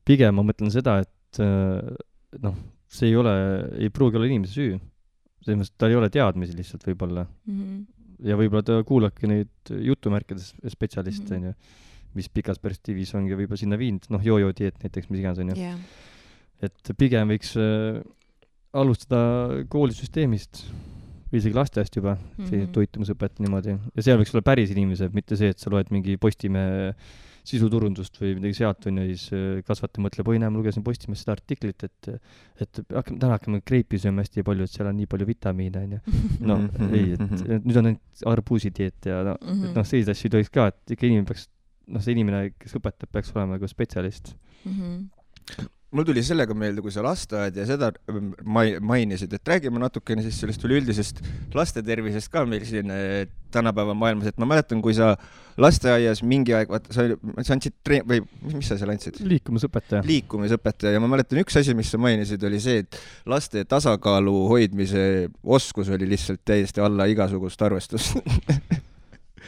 Pigem ma mõtlen seda, et see ei pruugi olla inimese süü. Selles mõttes, tal ei ole teadmisi lihtsalt võib-olla. Ja võib-olla ta kuulabki neid jutumärkides spetsialiste, mis pikas perspektiivis ongi võib-olla sinna viinud, jojo dieet näiteks, mis iganes on ju. Et pigem võiks alustada koolisüsteemist või isegi lasteast juba, see toitumusõpet niimoodi. Ja seal võiks olla päris inimesed, mitte see, et sa loed mingi Postimehe sisuturundust või midagi sealt on ja siis kasvataja mõtleb, ma lugesin Postimehest seda artiklit, et täna hakkame kreipi sööma hästi palju, et seal on nii palju vitamiine, on ju. Ei, et nüüd on ainult arbuusidieet ja sellised asju ei tohiks ka, et ikka inimene peaks, see inimene, kes õpetab, peaks olema nagu spetsialist. Mul tuli sellega meelde, kui sa lasteaed ja seda mainisid, et räägime natukene siis sellest üleüldisest laste tervisest ka meil siin tänapäeva maailmas, et ma mäletan, kui sa lasteaias mingi aeg, sa andsid või mis sa seal andsid? Liikumisõpetaja ja ma mäletan üks asi, mis sa mainisid, oli see, et laste tasakaalu hoidmise oskus oli lihtsalt täiesti alla igasugust arvestust.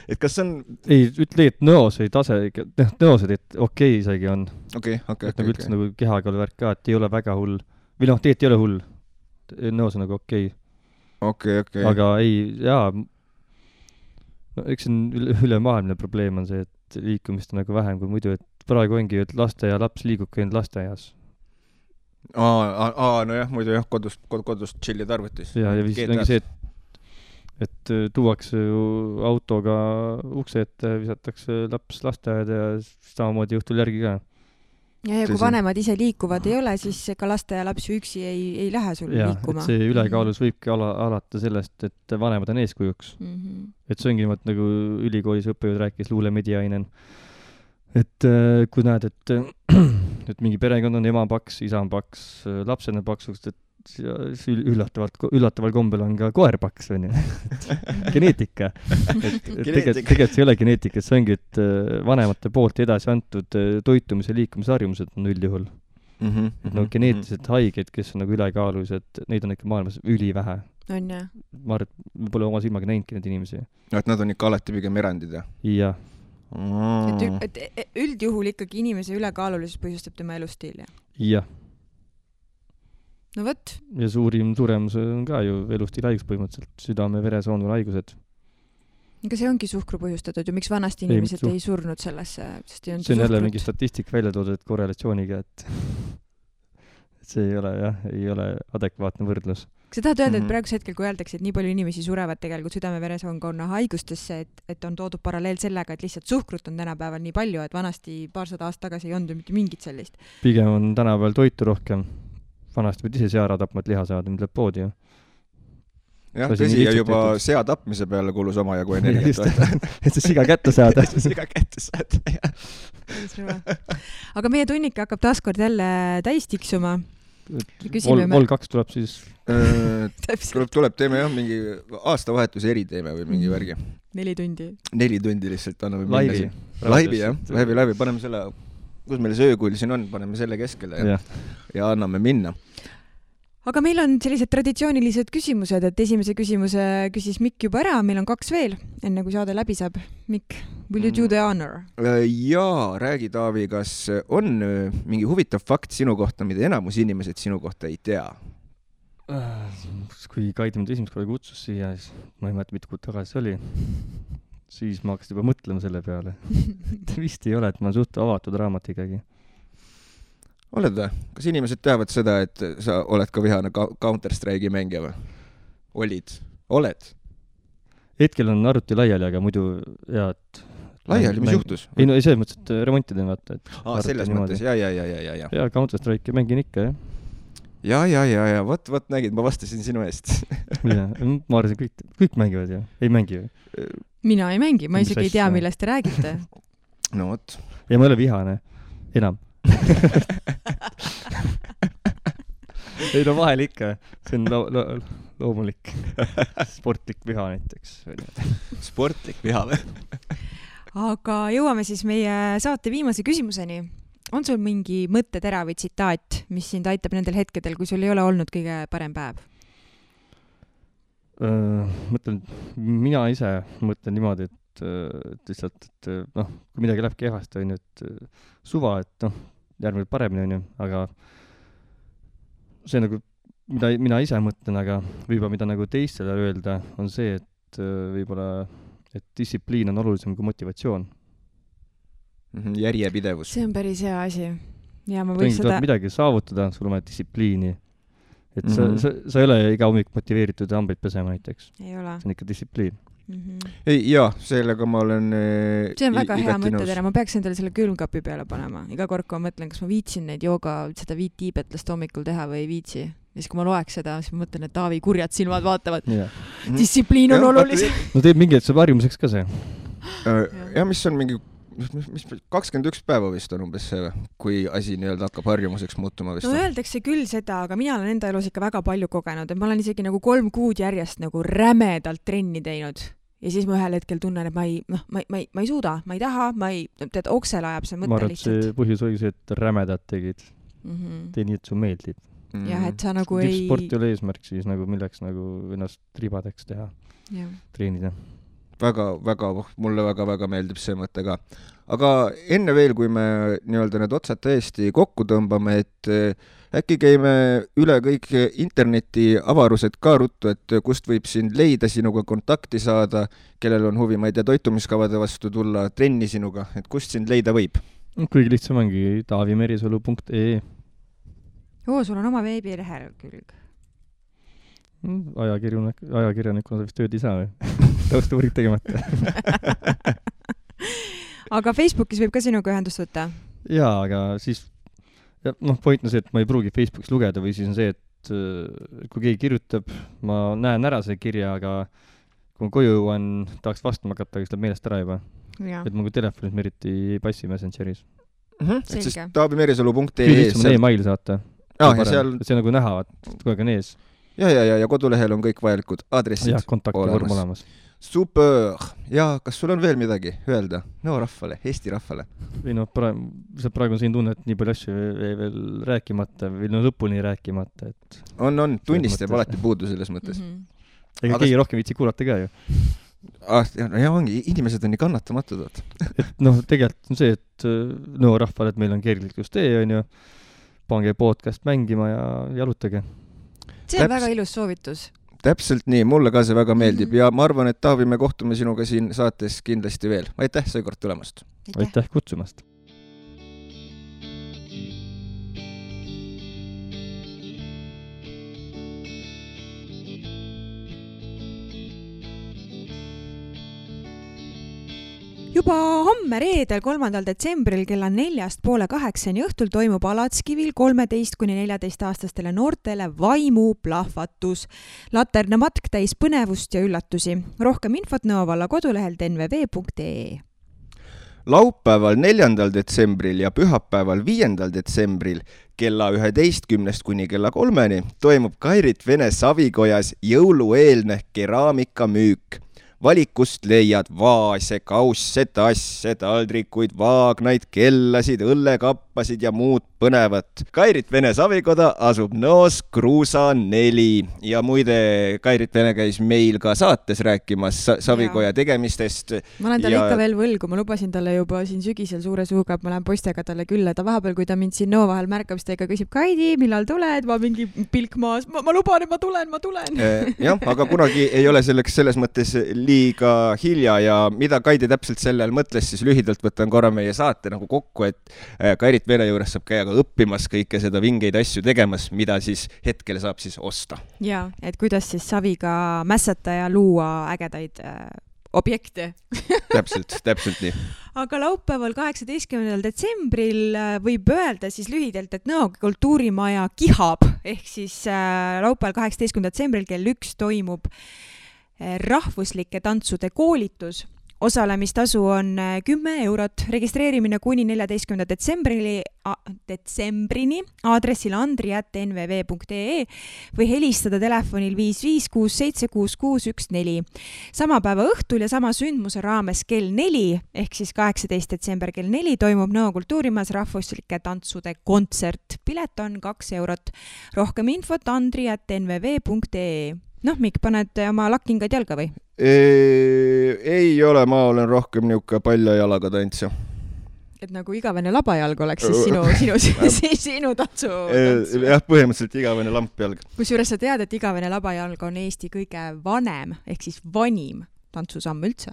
Et kas on... Ei, ütle, et nõosed okei isegi on. Okei. Üldse nagu kehakaalu värk ka, et ei ole väga hull. Või tegelikult ei ole hull. Nõos on nagu okei. Aga ei, eks ülemaailmne probleem on see, et liikumist on nagu vähem kui muidu, et praegu ongi, et laste ja laps liigub käinud lasteaias. Nojah, muidu kodust chillid arvutis. Ja vist ongi see, et tuuakse ju autoga ukse ette, visatakse laps lasteaeda ja samamoodi õhtul järgi ka. Ja kui vanemad ise liikuvad ei ole, siis ka laste ja laps üksi ei lähe sul liikuma. Et see ülekaalus võibki alata sellest, et vanemad on eeskujuks. Et see ongi nagu ülikoolis õppejõud rääkis Luule Mediainen. Et kui näed, et mingi perekond on ema paks, isa on paks, lapsed on paksust, et üllataval kombel on ka koer paks, on ju. Geneetika. Tegelikult see ei ole geneetika, see ongi, et vanemate poolt edasi antud toitumise ja liikumisharjumused on üldjuhul. Et geneetiliselt haiged, kes on nagu ülekaalulised, neid on ikka maailmas ülivähe. On jah. Ma arvan, et me pole oma silmaga näinudki neid inimesi. Et nad on ikka alati pigem erandid, jah? Jah. Et üldjuhul ikkagi inimese ülekaalulisus põhjustab tema elustiil, jah? Jah. No võt. Ja suurim suremus on ka ju elustiil haigus põhimõtteliselt, südame- ja veresoonul haigused. Aga see ongi suhkru põhjustatud ju, miks vanasti inimesed ei surnud sellesse, sest ei olnud see on jälle mingi statistik välja toodud korrelatsiooniga, et see ei ole adekvaatne võrdlus. Kas sa tahad öelda, et praeguse hetkel, kui öeldakse, et nii palju inimesi surevad tegelikult südame-veresoonkonna haigustesse, et on toodud paralleel sellega, et lihtsalt suhkrut on tänapäeval nii palju, et vanasti paarsada aastat tagasi ei olnud mitte mingit sellist? Pigem on tänapäeval toitu rohkem. Vanasti võid ise sea tapma, et liha saada, mida läheb poodi ju. Jah, tõsi, ja juba sea tapmise peale kulus oma jagu energiat. Et see siga kätte saada. Aga meie tunnike hakkab taaskord jälle täis tiksuma. Vol 2 tuleb siis... Tuleb, teeme jah, mingi aastavahetuse eriteeme või mingi värgi. 4 tundi. 4 tundi lihtsalt anname minna. Laivi, jah. Laivi. Paneme selle... kus meil see öökull siin on, paneme selle keskele ja anname minna. Aga meil on sellised traditsioonilised küsimused, et esimese küsimuse küsis Mikk juba ära, meil on 2 veel, enne kui saade läbi saab. Mikk, will you do the honor? Jaa, räägi Taavi, kas on mingi huvitav fakt sinu kohta, mida enamus inimesed sinu kohta ei tea? Kui Kaidi mind esimest korda kutsus siia, siis ma ei mäleta, mitu kuud tagasi oli. siis ma hakkasin juba mõtlema selle peale. Vist ei ole, et ma olen suht avatud raamat ikkagi. Oled või? Kas inimesed teavad seda, et sa oled ka vihane Counter-Strike'i mängija või? Oled? Hetkel on arvuti laiali, aga muidu et laiali, mis juhtus? Ei, no ei selles mõttes, et remontida vaata. Selles mõttes, ja. Ja Counter-Strike'i mängin ikka, jah. Ja, vot nägid, ma vastasin sinu eest. Ja, ma arvasin, kõik mängivad ju, ei mängi ju. Mina ei mängi, ma isegi ei tea, millest te räägite. No vot. Ja ma ei ole vihane, enam. Ei no vahel ikka, see on loomulik. Sportlik viha näiteks. Sportlik viha või? Aga jõuame siis meie saate viimase küsimuseni. On sul mingi mõttetera või tsitaat, mis sind aitab nendel hetkedel, kui sul ei ole olnud kõige parem päev? Mina ise mõtlen niimoodi, et lihtsalt, et kui midagi läheb kehvasti, on ju, et suva, et järgmine paremini on ju, aga see nagu, mida mina ise mõtlen, aga võib-olla mida nagu teistele öelda, on see, et võib-olla, et distsipliin on olulisem kui motivatsioon. Järjepidevus. See on päris hea asi. Ja ma võiks seda... midagi saavutada, sul on distsipliini. Et sa ei ole iga hommik motiveeritud hambaid pesema näiteks. Ei ole. See on ikka distsipliin. Ei, jaa, sellega ma olen see on väga hea mõttetera, ma peaks endale selle külmkapi peale panema. Iga kord, kui ma mõtlen, kas ma viitsin neid seda 5 tiibetlast hommikul teha või ei viitsi. Ja siis, kui ma loeks seda, siis ma mõtlen, et Taavi kurjad silmad vaatavad. Distsipliin on olulisem. No teeb mingi, et saab harjumuseks ka see. Ja mis on mingi 21 päeva vist on umbes see, kui asi nii-öelda hakkab harjumuseks muutuma vist. No öeldakse küll seda, aga mina olen enda elus ikka väga palju kogenud, et ma olen isegi nagu 3 kuud järjest nagu rämedalt trenni teinud. Ja siis ma ühel hetkel tunnen, et ma ei suuda, ma ei taha, tead, oksel ajab see mõte lihtsalt. Ma arvan, et see põhjus oli see, et rämedad tegid. Tee nii, et su meeldib. Jah, et sa nagu ei... Sport ei ole eesmärk siis nagu milleks nagu ennast ribadeks teha, treenida. Mulle väga meeldib see mõte ka. Aga enne veel, kui me nii-öelda need otsad täiesti kokku tõmbame, et äkki käime üle kõik interneti avarused ka ruttu, et kust võib sind leida, sinuga kontakti saada, kellel on huvi, ma ei tea, toitumiskavade vastu tulla, trenni sinuga, et kust sind leida võib? Kõige lihtsam ongi taavimerisalu.ee. Sul on oma veebilehekülg. Ajakirjanikuna sa vist tööd ei saa või? Taustuuring tegemata. Aga Facebookis võib ka sinuga ühendust võtta? Jaa, aga siis point on see, et ma ei pruugi Facebookis lugeda või siis on see, et kui keegi kirjutab, ma näen ära see kirja, aga kui ma koju on, tahaks vastama hakata, aga siis läheb meelest ära juba. Et ma kui telefonis me eriti ei passi Messengeris. Et siis taavimerisalu.ee Küll on e-mail saata. See nagu näha, et kogu aeg on ees. Ja kodulehel on kõik vajalikud aadressid olemas. Super! Ja kas sul on veel midagi öelda? No rahvale, Eesti rahvale. Või praegu on siin tunne, et nii palju asju veel rääkimata või lõpuni rääkimata. On, tunnistab alati puudu selles mõttes. Ega keegi rohkem viitsi kuulata ka ju. Ja ongi, inimesed on nii kannatamatud. Tegelikult on see, et rahvale, et meil on kergliklustee, on ju, pange podcast mängima ja jalutage. See on väga ilus soovitus. Täpselt nii, mulle ka see väga meeldib ja ma arvan, et Taavi, me kohtume sinuga siin saates kindlasti veel. Aitäh seekord tulemast. Aitäh kutsumast. Juba homme reedel 3. detsembril kella 4:30 õhtul toimub Alatskivil 13–14-aastastele noortele vaimuplahvatus. Laterna matk täis põnevust ja üllatusi. Rohkem infot Nõo valla kodulehel nv.ee. Laupäeval 4. detsembril ja pühapäeval 5. detsembril kella 11 kuni kella 3 toimub Kairit Vene Savikojas jõulueelne keraamikamüük. Valikust leiad vaase, kausse, tasse, taldrikuid, vaagnaid, kellasid, õllekappe, sappasid ja muud põnevat. Kairit Vene Savikoda asub Nõos Kruusa 4 ja muide Kairit Vene käis meil ka saates rääkimas Savikoja tegemistest. Ma olen talle ikka veel võlgu, ma lubasin talle juba siin sügisel suure suuga, et ma lähen poistega talle külla. Ta vahepeal, kui ta mind siin Nõo vahel märkab, siis ta ikka küsib, Kaidi, millal tuled? Ma mingi pilk maas, ma luban, et ma tulen. Jah, aga kunagi ei ole selleks selles mõttes liiga hilja ja mida Kaidi täpselt sellel mõtles, siis lühidalt võtan korra meie saate nagu kokku, et Kairit Vene juures saab käia ka õppimas kõike seda vingeid asju tegemas, mida siis hetkel saab siis osta. Ja, et kuidas siis saviga mässata ja luua ägedaid objekte. Täpselt nii. Aga laupäeval 18. detsembril võib öelda siis lühidalt, et Nõo kultuurimaja kihab, ehk siis laupäeval 18. detsembril kell 1 toimub rahvuslike tantsude koolitus. Osalemistasu on 10 eurot, registreerimine kuni 14. detsembrini aadressil andri@nvv.ee või helistada telefonil 556766614. Sama päeva õhtul ja sama sündmuse raames kell 4, ehk siis 18. detsember kell 4 toimub Nõo kultuurimajas rahvuslike tantsude kontsert. Pilet on 2 eurot. Rohkem infot andri@nvv.ee. Noh, Mikk, paned oma lakkingad jalga või? Ei ole, ma olen rohkem niuke palja jalaga tantsja. Et nagu igavene labajalg oleks siis sinu tantsu. Jah, põhimõtteliselt igavene lampjalg. Kusjuures sa tead, et igavene labajalg on Eesti kõige vanem, ehk siis vanim tantsusamm üldse.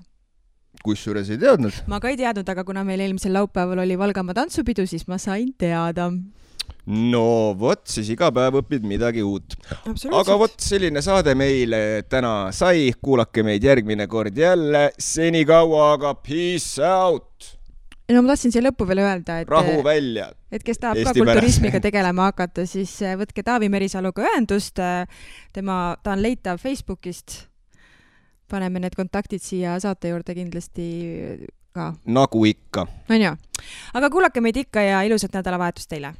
Kusjuures ei teadnud? Ma ka ei teadnud, aga kuna meil eelmisel laupäeval oli Valgamaa tantsupidu, siis ma sain teada. No vot, siis iga päev õpid midagi uut. Aga vot selline saade meile täna sai. Kuulake meid järgmine kord jälle. Senikaua, aga peace out! No ma tahtsin siia lõppu veel öelda, et rahu välja. Et kes tahab Eesti ka kulturismiga tegelema hakata, siis võtke Taavi Merisaluga ühendust. Ta on leitav Facebookist. Paneme need kontaktid siia saate juurde kindlasti ka. Nagu ikka. On ju. Aga kuulake meid ikka ja ilusat nädalavahetust teile.